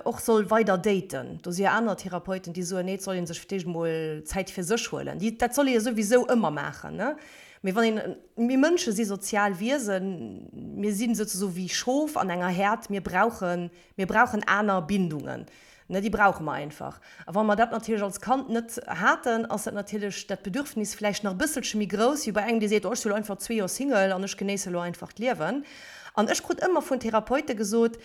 och soll weider daten. Do si jo aner Therapeuten, déi soen, nee, et soll ee sech fir d'éischt emol Zäit fir sech huelen. Déi, dat soll ee jo souwisou ëmmer maachen, ne? Mee wann een, mir Mënsche si sozial Wiesen, mir si souzesoe wéi Schof an enger Häerd, mir brauchen, mir brauchen aner Bindungen. Ne, déi brauche mer einfach. A wa mer dat natierlech als Kand net haten, ass dat natierlech dat Bedürfnis vläicht nach e bësselche méi grouss wéi bei engem, dee seet, oh, ech si lo einfach zwee Joer Single an ech genéisse lo einfach d'Liewen. An ech krut ëmmer vun Therapeute gesot,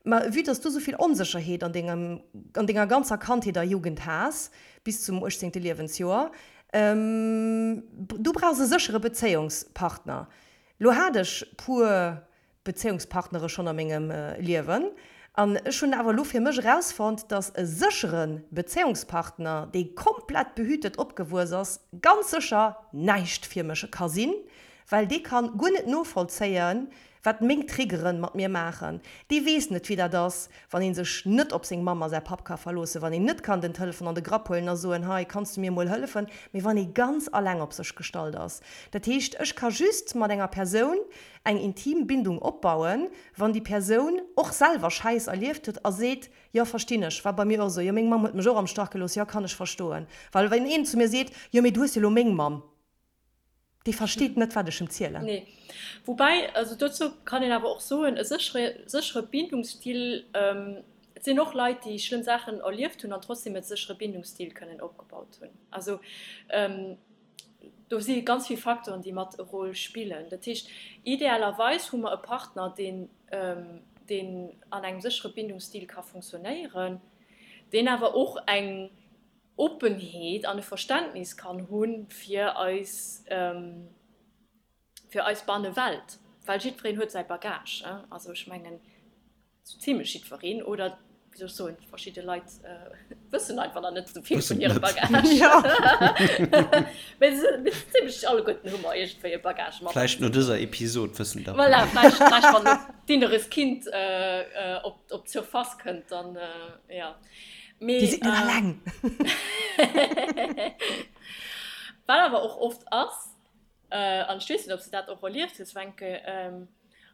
Ma vue dass du esou vill Onsécherheet an dengem, an denger ganzer Kandheet a Jugend has, bis zum uechtzéngte Liewensjoer, du brauchs e séchere Bezéiungspartner. Lo hat ech puer Bezéiungspartnere schonn a mengem Liewen an ech hunn awer elo fir mech erausfonnt, dass e séchere Bezéiungspartner, dee komplett behütet opgewuess ass, ganz sécher näischt fir mech ka sinn, well dee kann guer net novollzéien, wat meng Triggeren mat mir maachen. Dee weess net, wéi dat ass, wann ee sech net op seng Mamm a säi Papp ka verloossen, wann een net kann den Telefon an de Grapp huelen a soen, hei, kanns du mir emol hëllefen, mee wann ee ganz alleng op sech gestallt ass. Dat heescht, ech ka just mat enger Persoun eng intim Bindung opbauen, wann déi Persoun och selwer Schäiss erlieft huet a seet, jo verstinn ech, war bei mir och esou, jo meng Mamm huet mech och am Stach gelooss, jo kann ech verstoen. Well wann een zu mir seet, jo mee du hues jo elo meng Mamm, dee versteet net wat ech em zielen. Nee. Woubäi, also dozou kann een awer och soen, e séchere séchere Bindungsstil, et sinn och Leit déi schlëmm Saachen erlieft hunn an trotzdem e séchere Bindungsstil kënnen opgebaut hunn. Also Do si ganz vill Facteuren, déi mat e Rôle spillen. Dat heescht, idealerweis hu mer e Partner, deen, deen an engem séchere Bindungsstil ka funktionéieren, deen awer och eng Oppenheet an e Verständnis kann hu fir eis, fir eis Bannewelt. Well jiddwereen huet säi Bagage. Also ech mengen, Sou zimlech jiddwereen, oder wéi soll ech soen, verschidde Leit wëssen einfach nach net esou vill vun hirem Bagage. Mee zimlech alleguerten hu mer iergendwéi e Bagage mat. Vläicht no dëser Episod wëssen der. Voilà, vläicht, vläicht wann d'inneres Kind op, op d'Surface kënnt, dann, jo. Mee. Dir sidd net alleng! Wat awer och oft ass, an ech weess net, ob s de dat och erlieft hues, Wencke,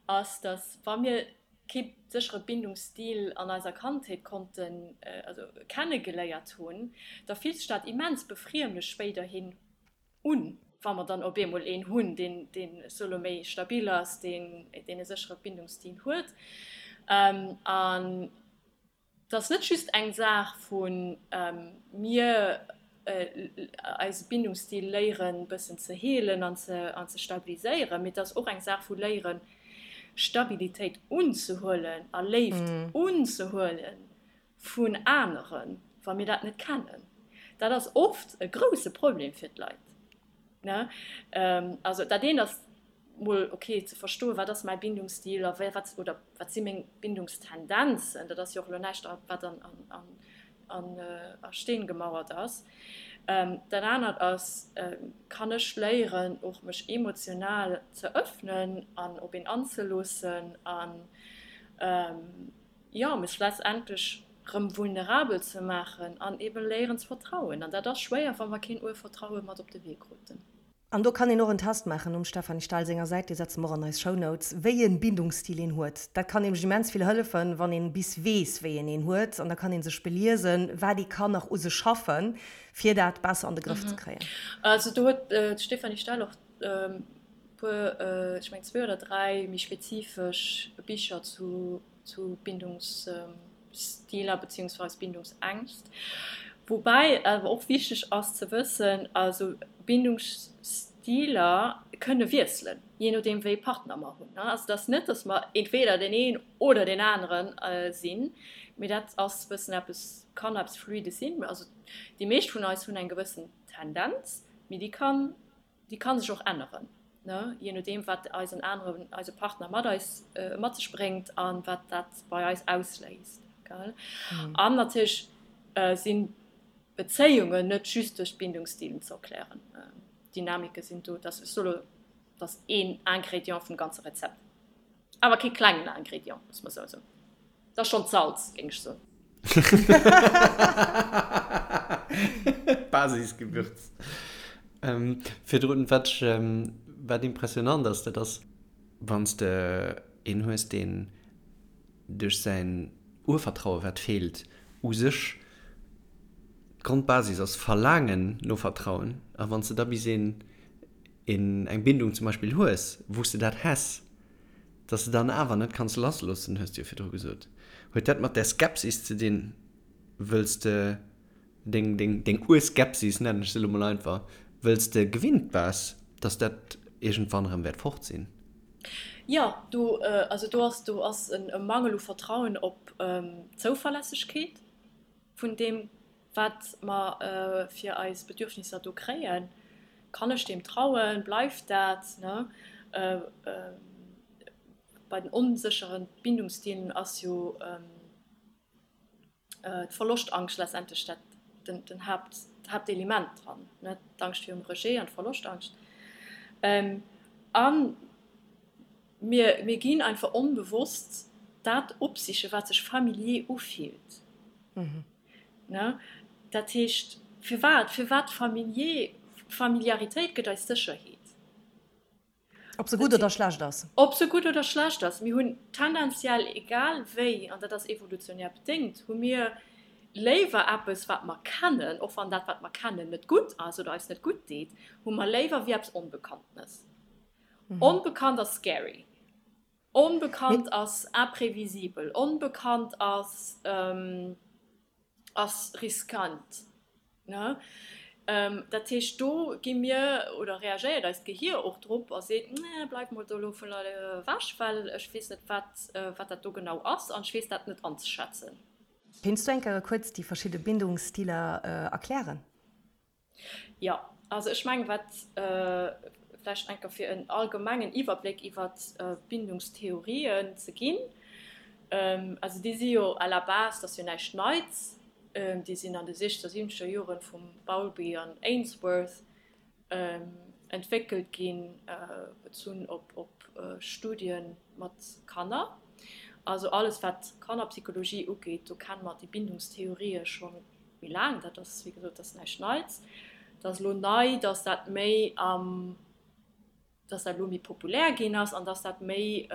ass, datt wa mir kee séchere Bindungsstil an eiser Kandheet konnten, also kennegeléiert hunn, da fillt sech dat immens befriemlech spéiderhin un, wa mer dann op eemol een hunn, deen, deen, ech soe lo, méi stabil ass, deen, deen e séchere Bindungsstil huet. An Et ass net just eng Saach vu mir eise Bindungsstil léieren bëssen ze heelen an ze stabiliséieren, mee et ass och eng Saach vu léieren Stabilitéit unzehuelen a Léift unzehuele vun aneren, wa mir dat net kennen. Dat ass oft e grousse Problem fir d'Leit, ne? Also dat eent ass mol ok ze verstoen, wat ass mäi Bindungsstil a wat oder wat si meng Bindungstendenzen. Dat ass jo och elo näischt, wat an an a Steen gemauert ass. Dat anert ass, kann ech léieren och mech emotional ze öffnen an op een anzeloossen an jo mech letztendlech rëm vulnerabel ze maachen an eben léieren ze vertrauen. An dat ass schwéier, wa mer keen Urvertraue mat op de Wee kruten. An do kann een och en Test maachen um Stéphanie Stahl senger Säit, dee setze mer och an eis Shownotes, wéi e Bindungsstil een huet. Dat kann nämlech immens vill hëllefen, wann een bis weess, wéi een een huet. An da kann ee sech beliesen, wat ee kann nach u sech schaffen, fir dat besser an de Grëff ze kréien. Also do huet d'Stéphanie Stahl och e puer, ech mengen zwee oder dräi méi spezifesch Bicher zu zu Bindungsstiler beziehungsweise Bindungsängst. Woubäi awer och wichteg ass ze wëssen, also Bindungsstiler kënne wiesselen, jee nodeem wéi ee Partner mer hunn. Also et ass net, datt mer entweder deen een oder deen anere sinn, mee dat ass bëssen eppes, kann eppes Fluides sinn. Also déi meescht vun eis hunn eng gewëssen Tendenz, mee déi kann Déi kann sech och änneren, ne, jee nodeem wat eisen aneren, eise Partner mat eis, mat sech bréngt an wat dat bei eis ausléist, gell. An natierlech sinn Bezéiungen net just duerch d'Bindungsstilen ze erklären. Dynamike sinn do, dat ass elo, dat ass een Ingrédient vum ganze Rezept. Awer kee klengen Ingrédient, muss mer sou soen. Dat ass schonn d'Salz, géing ech soen. Basisgewürz. Virdrun, wat ech, wat impressionant ass, dat ass, wann s de een hues, deen duerch säin Urvertraue wat feelt, u sech d'Grondbasis ass Verlaangen no Vertrauen, a wann s de da bis een, een eng Bindung zum Beispill hues, wou s de dat häss, dass de dann awer net kanns lassloossen, hues de jo virdru gesot. Huet dat mat där Skepsis ze dinn, wëlls de deng, deng, deng Urskepsis, nennen ech se elo mol einfach, wëlls de gewinnt bass, dass dat iergendwann erëm wäert fort sinn? Jo, do, also do ass, do ass e Mangel u Vertrauen op d'Zouverlässegkeet vun deem, wat mer fir eis Bedürfnisser do kréien, kann ech deem trauen, bleift dat, ne? Bei den onsécheren Bindungsstilen ass jo d'Verloschtangscht letztendlech dat den Haapt, d'Haaptelement dran, ne? D'Angscht virum Rejet an d'Verloschtangscht. A mir, mir ginn einfach onbewosst dat opsichen, wat sech familier ufillt. Ne? Dat heescht, firwat? Firwat familier? Familiaritéit gëtt eis Sécherheet. Ob se gutt oder schlecht ass. Ob se gutt oder schlecht ass. Mir hunn tendenziell, egal wéi, an dat ass evolutionär bedéngt, hu mir léiwer eppes, wat mer kennen, och wann dat, wat mer kennen, net gutt ass oder eis net gutt deet, hu mer léiwer wéi eppes Onbekanntenes. Onbekannt ass scary. Onbekannt ass imprévisibel, onbekannt ass ass riskant, ne? Dat heescht, do gi mir oder reagéiert eist Gehier och drop a seet, nee, bleif mol do elo vun ewech, well ech weess net, wat wat dat do genau ass an ech weess dat net anzeschätzen. Kéints du eng Kéier kuerz déi verschidde Bindungsstiler erklären? Jo, also ech mengen, wat vläicht eng Kéier fir en allgemengen Iwwerbléck iwwer d'Bindungstheorien ze ginn, also déi si jo à la base, dat ass jo näischt Neits, déi sinn an de siechzeger, siwwenzeger Joren vum Bowlby an Ainsworth entwéckelt ginn, bezunn op Studie mat Kanner. Also alles wat Kannerpsychologie ugeet, do kenne mer déi Bindungstheorië scho méi laang. Dat ass, wéi gesot, dat ass näischt Neits. Et ass elo nei, datt dat méi am, datt dat elo méi populär ginn ass an datt dat méi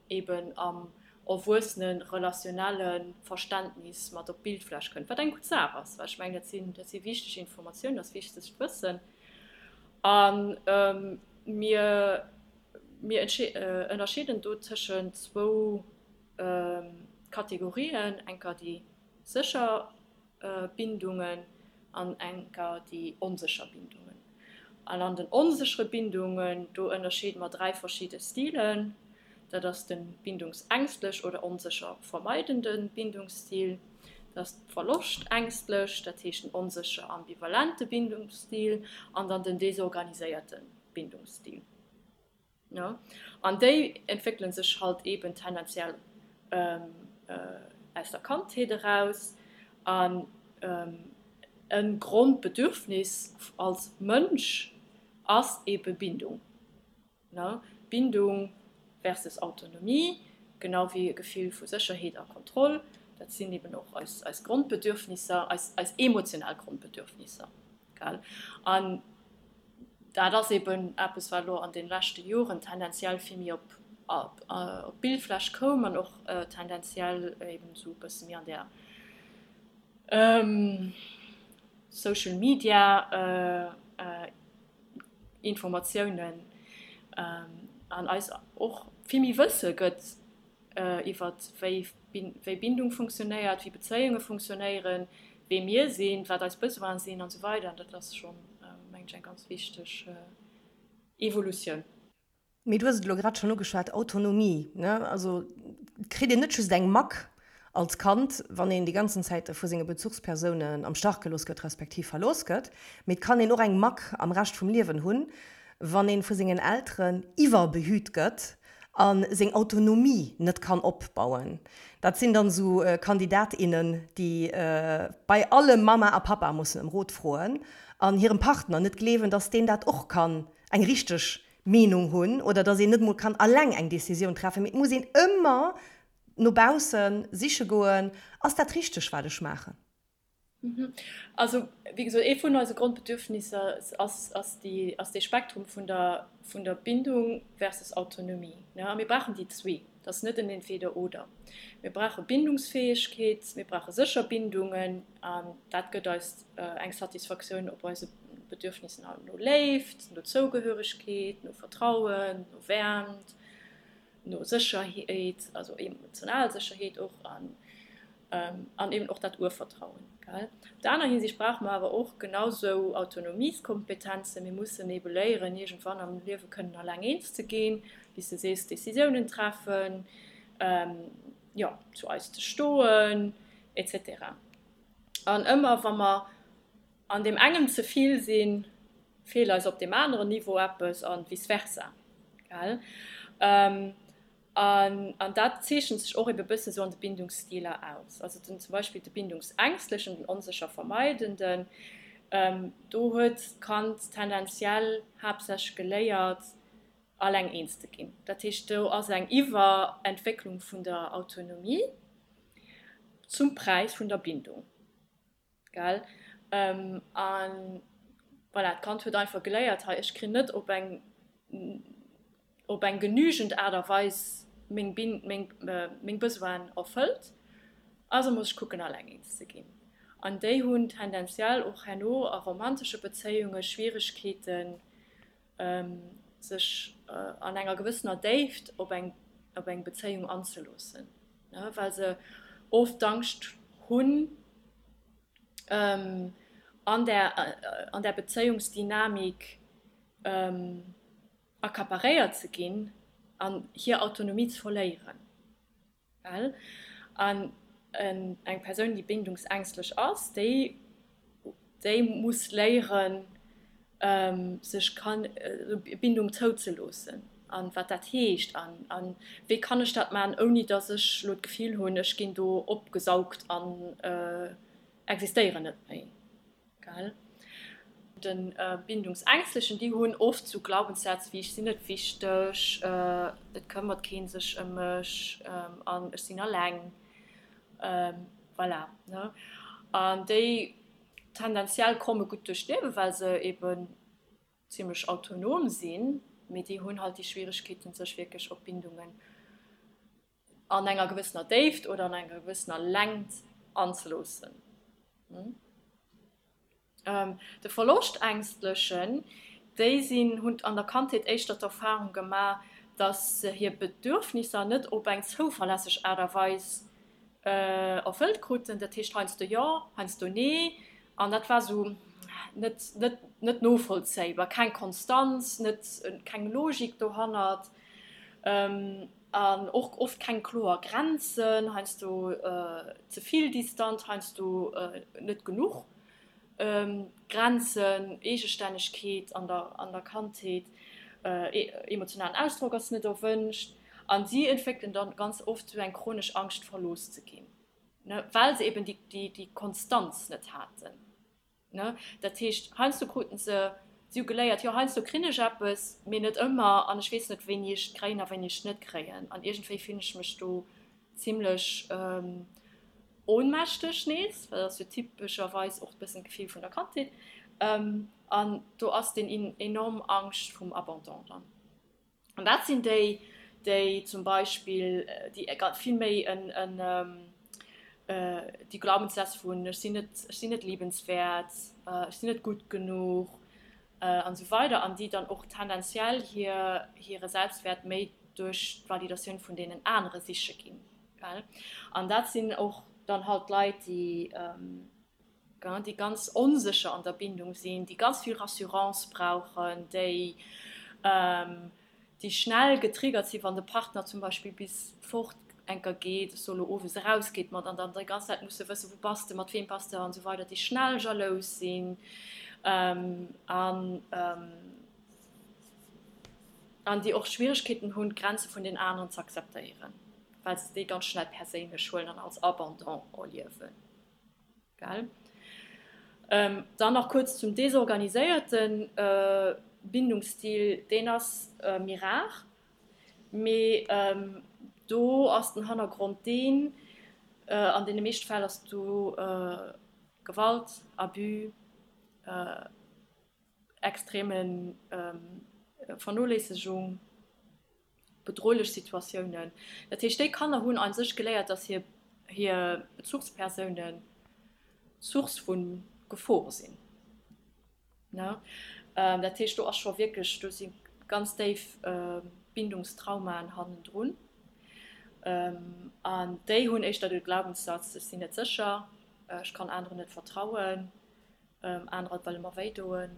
eben am erwuessene relationelle Verständnis mat op d'Bildfläch kënnt, wat eng gutt Saach ass, well ech mengen, dat sinn, dat si wichteg Informatiounen, dat ass wichtegt Wëssen. A mir, mir ënnerscheeden do tëschent zwou Kategorien, enker déi sécher Bindungen an enker déi onsécher Bindungen. An an den onséchere Bindungen, do ënnerscheede mer 3 verschidde Stilen. Dat ass de bindungsängstlech oder onsécher vermeidende Bindungsstil. Dat ass verloschtängstlech, dat heescht den onsécher ambivalente Bindungsstil an dann den desorganiséierte Bindungsstil. An déi entwéckele sech halt eben tendenziell aus der Kandheet eraus. An e Grondbedürfnis als Mënsch ass ebe Bindung. Bindung versus Autonomie, genau wéi e Gefill vu Sécherheet a Kontroll, dat sinn eben och eis Grondbedürfnisser, eis emotional Grondbedürfnisser. An dat ass eben eppes, wat elo an de leschte Joren tendenziell vill méi op d'Bildfläch koum an och tendenziell eben esou e bësse méi an där Social Media Informatiounen an eis och vill méi Wësse gëtt iwwer wéi Bindung funktionéiert, wéi Bezéiunge funktionéieren, wee mir sinn, wat eis Besoine sinn an esou weider. An dat ass schonn, mengen ech, eng ganz wichteg Evolutioun. Mee du hues et elo grad schonn ugeschwat, Autonomie, ne? Also et kritt een net just eng Mack als Kand, wann een déi ganzen Zäit vu senge Bezuchspersounen am Stach gelooss gëtt, respektiv verlooss gëtt, mee et kann een och eng Mack am Rescht vum Liewen hunn, wann ee vu sengen Elteren iwwerbehüt gëtt a seng Autonomie net kann opbauen. Dat sinn dann esou Kandidat, innen, déi bei allem Mama a Papa mussen ëm Rot froen an hirem Partner net gleewen, dass deen dat och kann eng richteg Meenung hunn oder dass een net emol kann alleng eng Décisioun treffen, mee et muss een ëmmer no bausse siche goen, ass dat richteg wat ech maachen? Also wéi gesot, ee vun eise Grondbedürfnisser ass, ass déi, ass dee Spektrum vun der, vun der Bindung versus Autonomie. A mir brauchen déi zwee. Et ass net en Entweder-oder. Mir brauche Bindungsfäegkeet, mir brauche sécher Bindungen an dat gëtt eis eng Satisfaktioun op eise Bedürfnissen no Léift, no Zougehöregkeet, no Vertrauen, no Wäermt, no Sécherheet, also emotional Sécherheet och an an eben och dat Urvertrauen. Op der aner Hinsicht brauche mer awer och genau sou Autonomieskompetenzen. Mir mussen ebe léieren, iergendwann am Liewe kënnen alleng eens ze ginn, wéi s de sees, Decisiounen treffen, jo, zu eis ze stoen, et cetera. An ëmmer wa mer an deem engem ze vill sinn, feelt eis op deem aneren Niveau eppes a vice versa. Gell? An dat zeechent sech och ebe bësse sou an de Bindungsstiler aus. Also den, zum Beispill de Bindungsängstlechen, den onsécher Vermeidenden, do huet d'Kand tendenziell haaptsächlech geléiert, alleng eens ze ginn. Dat heescht, do ass eng Iwwerentwécklung vun der Autonomie zum Präis vun der Bindung. Gell? An voilà, d'Kand huet einfach geléiert, hei, ech krin net op eng, op eng genügend Aart a Weis meng Bin, meng, meng Besoinen erfëllt, also muss ech kucken, alleng eens ze ginn. An déi hunn tendenziell och herno a romantesche Bezéiunge Schwieregkeeten, sech an enger gewëssener Déift op eng, op eng Bezéiung anzeloossen, well se oft d'Angscht hunn, an där, an där Bezéiungsdynamik accaparéiert ze ginn an hir Autonomie ze verléieren. Well an eng Persoun, déi bindungsängstlech ass, déi, déi muss léieren, sech kann Bindung zouzeloossen an wat dat heescht an an wéi kann ech dat maachen, ouni datt ech elo d'Gefill hunn, ech ginn do opgesaugt an existéieren net méi. Gell? De Bindungsängstlechen, déi hunn oft sou Glaubenssätz wéi ech sinn net wichteg, et këmmert kee sech ëm mech an ech sinn alleng. Voilà, ne? An déi tendenziell komme gutt duerch d'Liewen, well se eben zimmlech autonom sinn, mee déi hunn halt déi Schwieregkeeten, sech wierklech op Bindungen an enger gewëssener Déift oder an enger gewëssener Längt anzeloossen. De Verloschtängstlechen, déi sinn, hunn an der Kandheet éischter d'Erfahrung gemaach, dass se hir Bedürfnisser net op eng zouverlässeg Aart a Weis erfëllt kruten. Dat heescht heiansdo jo, heiansdo nee. An dat war esou net, net, net novollzéibar, keng Konstanz, net, keng Logik dohannert. An och oft keng kloer Grenzen, heiansdo ze vill distant, heiansdo net genuch Grenzen, Eegestännegkeet an der Kandheet, emotionalen Ausdrock ass net erwënscht. An si entwéckelen dann ganz oft esou eng chronesch Angscht verlooss ze ginn, well se eben déi Konstanz net haten. Ne? Dat heescht, heiansdo kruten se, si hu geléiert, jo heiansdo krin ech eppes, mee net ëmmer an ech weess net wéini ech et kréien a wéini ech et net kréien an iergendwéi fillen ech mech do zimlech ohnmächteg nees, well dat ass jo typescherweis och e bëssen d'Gefill vun der Kandheet an do ass deen enorm Angscht vum Abandon dann. An dat sinn déi, déi zum Beispill, déi vill méi en, déi Glaubenssätz vun ech sinn net, ech sinn net liebenswäert, ech sinn net gutt genuch an esou weider an déi dann och tendenziell hir, hire Selbstwäert méi duerch d'Validatioun vun deenen anere siche ginn. An dat sinn och dann halt Leit, déi, déi ganz onsécher an der Bindung sinn, déi ganz vill Rassurance brauchen, déi déi schnell getriggert sinn, wann de Partner zum Beispill bis fort enker geet, ech soe lo owes erausgeet mat an dann déi ganz Zäit musse wëssen, wou bass de, mat weem bass de an esou weider, déi schnell jalous sinn an an déi och Schwieregkeeten hunn, d'Grenze vun den aneren ze akzeptéieren, well se déi ganz schnell perséinlech huelen an als Abandon erliewen. Gell? Dann nach kuerz zum desorganiséierte Bindungsstil, deen ass méi rar, mee do ass den Hannergrond deen, an deene meeschte Fäll ass do Gewalt, Abus, extreme Vernoléissegung, bedrohlech Situatiounen. Dat heescht, déi Kanner hunn a sech geléiert, dass hir hir Bezuchspersounen Source vu Gefor sinn. Ne? Dat heescht, do ass scho wierklech, do si ganz déif Bindungstraumaen hannendrun. An déi hunn éischter de Glaubenssatz, ech sinn net sécher, ech kann aneren net vertrauen. Anerer wëlle mer wéi doen.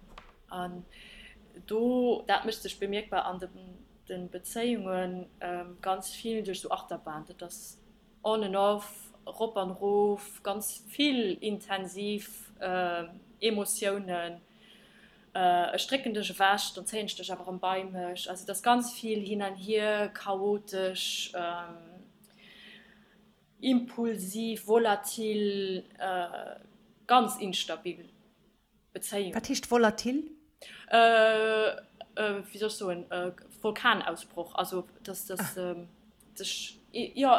An do, dat mécht sech bemierkbar an de Bezéiunge ganz vill duerch esou Achterbahn. Dat ass on and off, rop an erof, ganz vill intensiv Emotiounen. Ech drécken dech ewech, dann zéien ech dech awer erëm bei mech. Also et ass ganz vill hin an hier, chaotesch. Impulsiv, volatil, ganz instabil Bezéiung. Wat heescht volatil? Wéi soll ech soen, Vulkanausbroch, also dass dass sech, jo,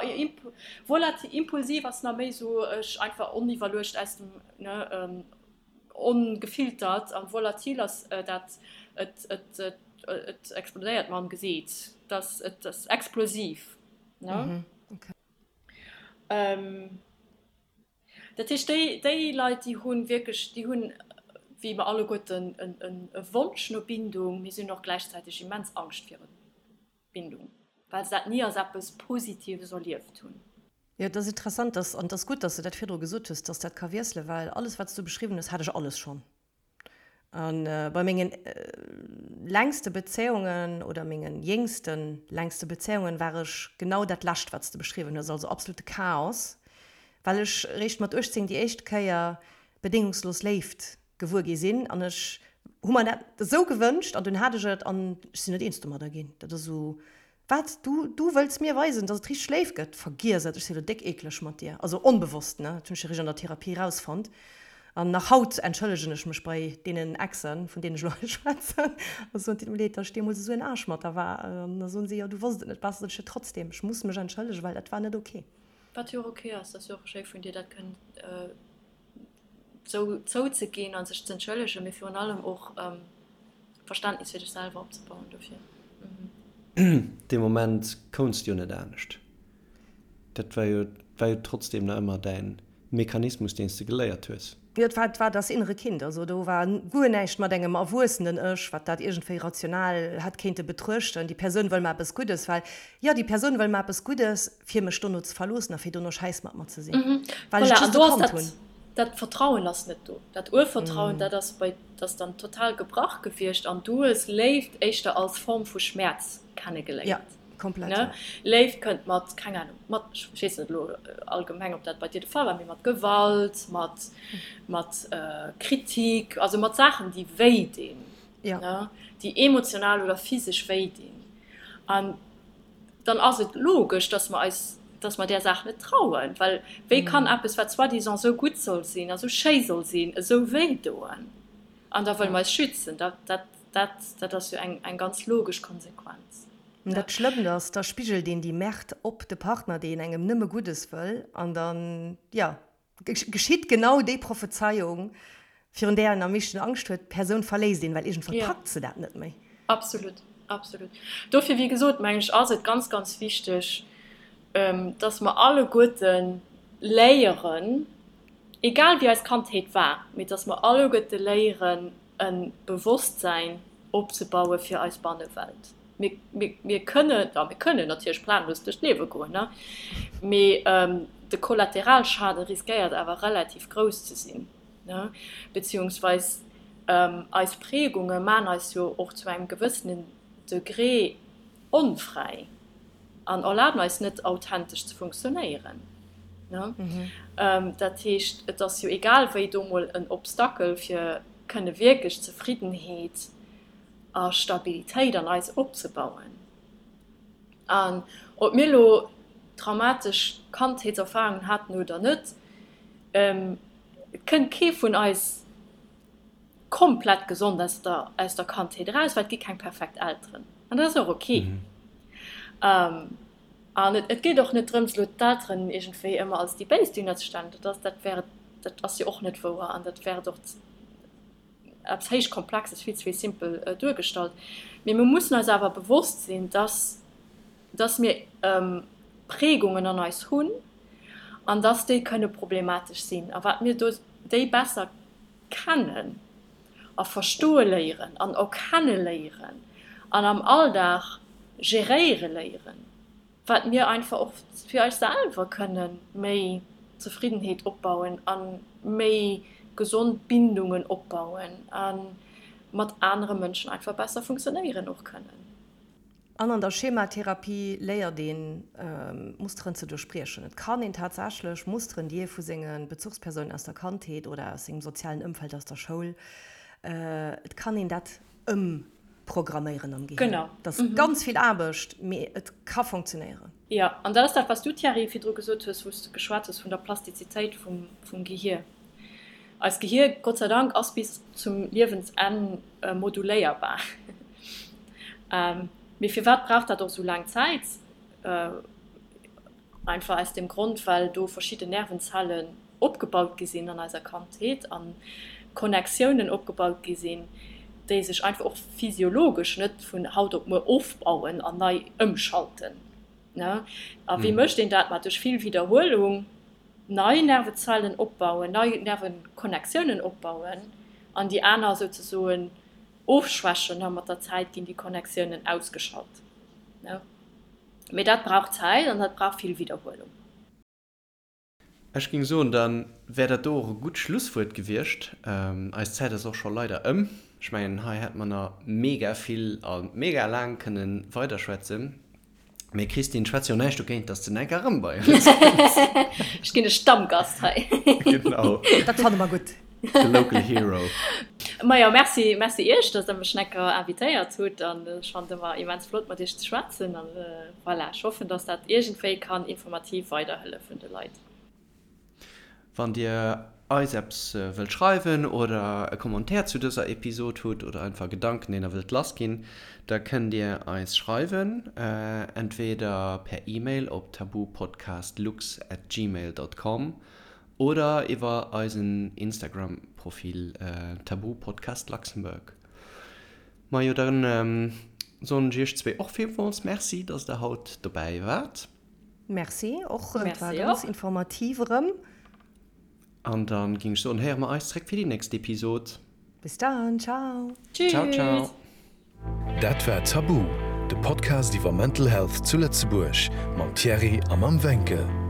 volatil, impulsiv ass nach méi esou ech einfach oniwwerluecht aus dem, ne, ongefiltert, an volatil ass dat et et et explodéiert mer am Gesiit, dass et ass explosiv, ne. Dat heescht, déi, déi Leit, déi hu wierklech, déi hunn, wéi mer alleguerten, e Wonsch no Bindung, mee si hunn och gläichzäiteg immens Angscht viru Bindung, well se dat ni als eppes Positives erlieft hunn. Jo, et ass interessant, dass, an et ass gutt, dass de dat virdru gesot hues, dass dat ka wiesselen, well alles, wat s du beschriwwen hues, hat ech alles schonn. A bei mengen längste Bezéiungen oder mengen jéngste längste Bezéiungen war ech genau dat lescht, wat s de beschriwwen hues, also absolute Chaos, well ech eréischt mat 18 déi éischt Kéier bedéngungslos Léift gewuer gi sinn an ech hu mer dat esou gewënscht an dunn hat ech et an ech sinn net eens domadder ginn. Dat ass esou Wat? Du, du wëlls mir weisen, dass et richteg léif gëtt? Vergiess et, ech si lo déck eekleg mat dir. Also onbewosst, ne? Dat hunn ech eréischt an der Therapie erausfonnt. An nach haut entschëllegen ech mech bei deenen Exen, vun deenen ech elo hei schwätzen, a soen, Et deet mir leed, dass ech deemools esou en Aarsch mat der war. An da soen si, Jo, du wosst et net besser. Sot ech, Jo, trotzdem, ech muss mech entschëllegen, well dat war net ok. Wat jo och ok ass. Dat ass jo och schéi vun dir, dat kënnen zou zouzeginn a sech z'entschëllegen, mee virun allem och Verständnis fir dech selwer opzebauen dofir. Dee Moment kounts de jo net anescht. Dat war jo, war jo trotzdem nach ëmmer däin Mechanismus, deen s de geléiert hues. Jo, et war, et war das innere Kind. Also do war guer näischt mat engem erwuessenen Ech, wat dat iergendwéi rational hätt kéinte betruechten. Déi Persoun wëll mer eppes Guddes, well, jo, déi Persoun wëll mer eppes Guddes, fir mech dono ze verloossen a fir dono Schäiss mat mer ze sinn, well ech just e Kand hunn. Dat Vertrauen ass net do. Dat Urvertrauen, dat ass bei, dat ass dann total gebrach gewiescht an du hues Léift éischter als Form vu Schmäerz kennegeléiert. Jo, Komplett, ja. Léift kënnt mat, keng Ahnung, mat, ech weess net elo allgemeng, ob dat bei dir de Fall war, mee mat Gewalt, mat, mat Kritik, also mat Saachen, déi wéi dinn, ne, déi emotional oder physesch wéi dinn. An dann ass et logesch, dass mer eis, dass mer där Saach net trauen, well wéi kann eppes, wat soi-disant esou gutt soll sinn a sou schéi soll sinn, esou wéi doen? An da wëlle mer eis schützen. Dat, dat, dat, dat ass jo eng, eng ganz logesch Konsequenz. An dat Schlëmmt ass, da spigelt een déi Merde op de Partner, deen engem nëmme Guddes wëll, an dann, jo, geschitt genau déi Prophezeiung, virun där een am meeschten Angscht huet, d'Persoun verléisst een, well iergendwann packt se dat net méi. Absolut, absolut. Dofir, wéi gesot, mengen ech, ass et ganz, ganz wichteg, dass mer alleguerte léieren, egal wéi eis Kandheet war, mee dass mer alleguerte léieren, e Bewosstsäin opzebaue fir eis Bannewelt. Mir, mir, mir kënnen, ja, mir kënnen natierlech planlos duerch d'Liewe goen, ne? Mee de Kollateralschaden riskéiert awer relativ grouss ze sinn, ne? Beziehungsweis eis Prägunge maan eis jo och zu engem gewëssenen Degré onfräi an erlaben eis net authentesch ze funktionéieren, ne? Dat heescht, et ass jo egal wéi do mol en Obstacle fir kënne wierklech Zefriddenheet a Stabilitéit an eis opzebauen. An ob mir elo traumatesch Kandheetserfarungen haten oder net, et kënnt kee vun eis komplett gesond aus der, aus der Kandheet eraus, well et gi keng perfekt Elteren. An dat ass och ok. An et geet och net drëms, elo d'Elteren iergendwéi ëmmer als déi Béis duerzestellen. Dat ass, dat wär, dat ass jo och net wouer an dat wär et och eppes héich Komplexes vill ze vill simpel duergestallt. Mee mir mussen eis awer bewosst sinn, dass, dass mir Prägungen an eis hunn an dass déi kënne problematesch sinn. A wat mir do déi besser kennen a verstoe léieren an erkenne léieren an am Alldag geréiere léieren, wat mir einfach och fir eis selwer kënne méi Zefriddenheet opbauen a méi gesond Bindungen opbauen a mat anere Mënschen einfach besser funktionéieren och kënnen. An an der Schematherapie léiert een, Musteren ze duerchbriechen. Et kann een tatsächlech Musteren, déi ee vu senge Bezuchspersounen aus der Kandheet oder aus sengem sozialen Ëmfeld, aus der Schoul, et kann een dat ëm Programméieren am Gehir. Genau. Dat ass ganz vill Aarbecht, mee et ka funktionéieren. Jo, an dat ass dat, wat s du, Thierry, virdru gesot hues, wou s de geschwat hues vun der Plastizitéit vum Gehir. Eist Gehir, Gott sei Dank, ass bis zum Liewensenn moduléierbar. Mee firwat brauch dat och esou laang Zäit? Einfach aus dem Grond, well do verschidden Nervenzellen opgebaut gi sinn an eiser Kandheet a Connectiounen opgebaut gi sinn, déi sech einfach och physiologesch net vun haut op muer ofbauen an nei ëmschalten. A wéi mécht een dat? Ma duerch vill Widderhuelung nei Nervezellen opbauen, nei Nervenconnectiounen opbauen an déi aner souzesoen ofschwächen a mat der Zäit ginn déi Connectiounen ausgeschalt. Mee dat brauch Zäit an dat brauch vill Widderhuelung. Ech géing soen, da wär dat do och e gutt Schlusswuert gewiescht. Eis Zäit ass och scho leider ëm. Ech mengen, hei hätt mer nach mega vill a mega laang kënne weiderschwätzen. Mee Christine, schwätz jo näischt dogéint, dass de enker erëm bei eis kënns. Ech ginn e Stammgast hei. Genau. Dat fanne mer gutt. De local hero. Majo, merci, merci iech, dass der mech necker invitéiert hutt an ech fannen et ëmmer immens flott mat iech ze schwätzen an voilà, ech hoffen, dass dat iergendwéi kann informativ weiderhëllefen de Leit. Wann dir eis eppes wëllt schreiwen oder e Commentaire zu dëser Episod hutt oder einfach Gedanken deen der wëllt lass ginn, da kënnt dir eis schreiwen, entweder per Email op tabupodcastlux at gmail dot com Oder iwwer eisen Instagram Profil Tabu Podcast Luxembourg. Majo dann soen ech iech zwee och villmools Merci dass der haut dobäi waart. Merci och, et war ganz informativ erëm. An dann ging ech soen héiere mer eis zréck fir déi nächst Episod. Bis dann, ciao. Ciao ciao. Dat war Tabu, de Podcast iwwer Mental Health zu Lëtzebuerg mam Thierry a mam Wencke.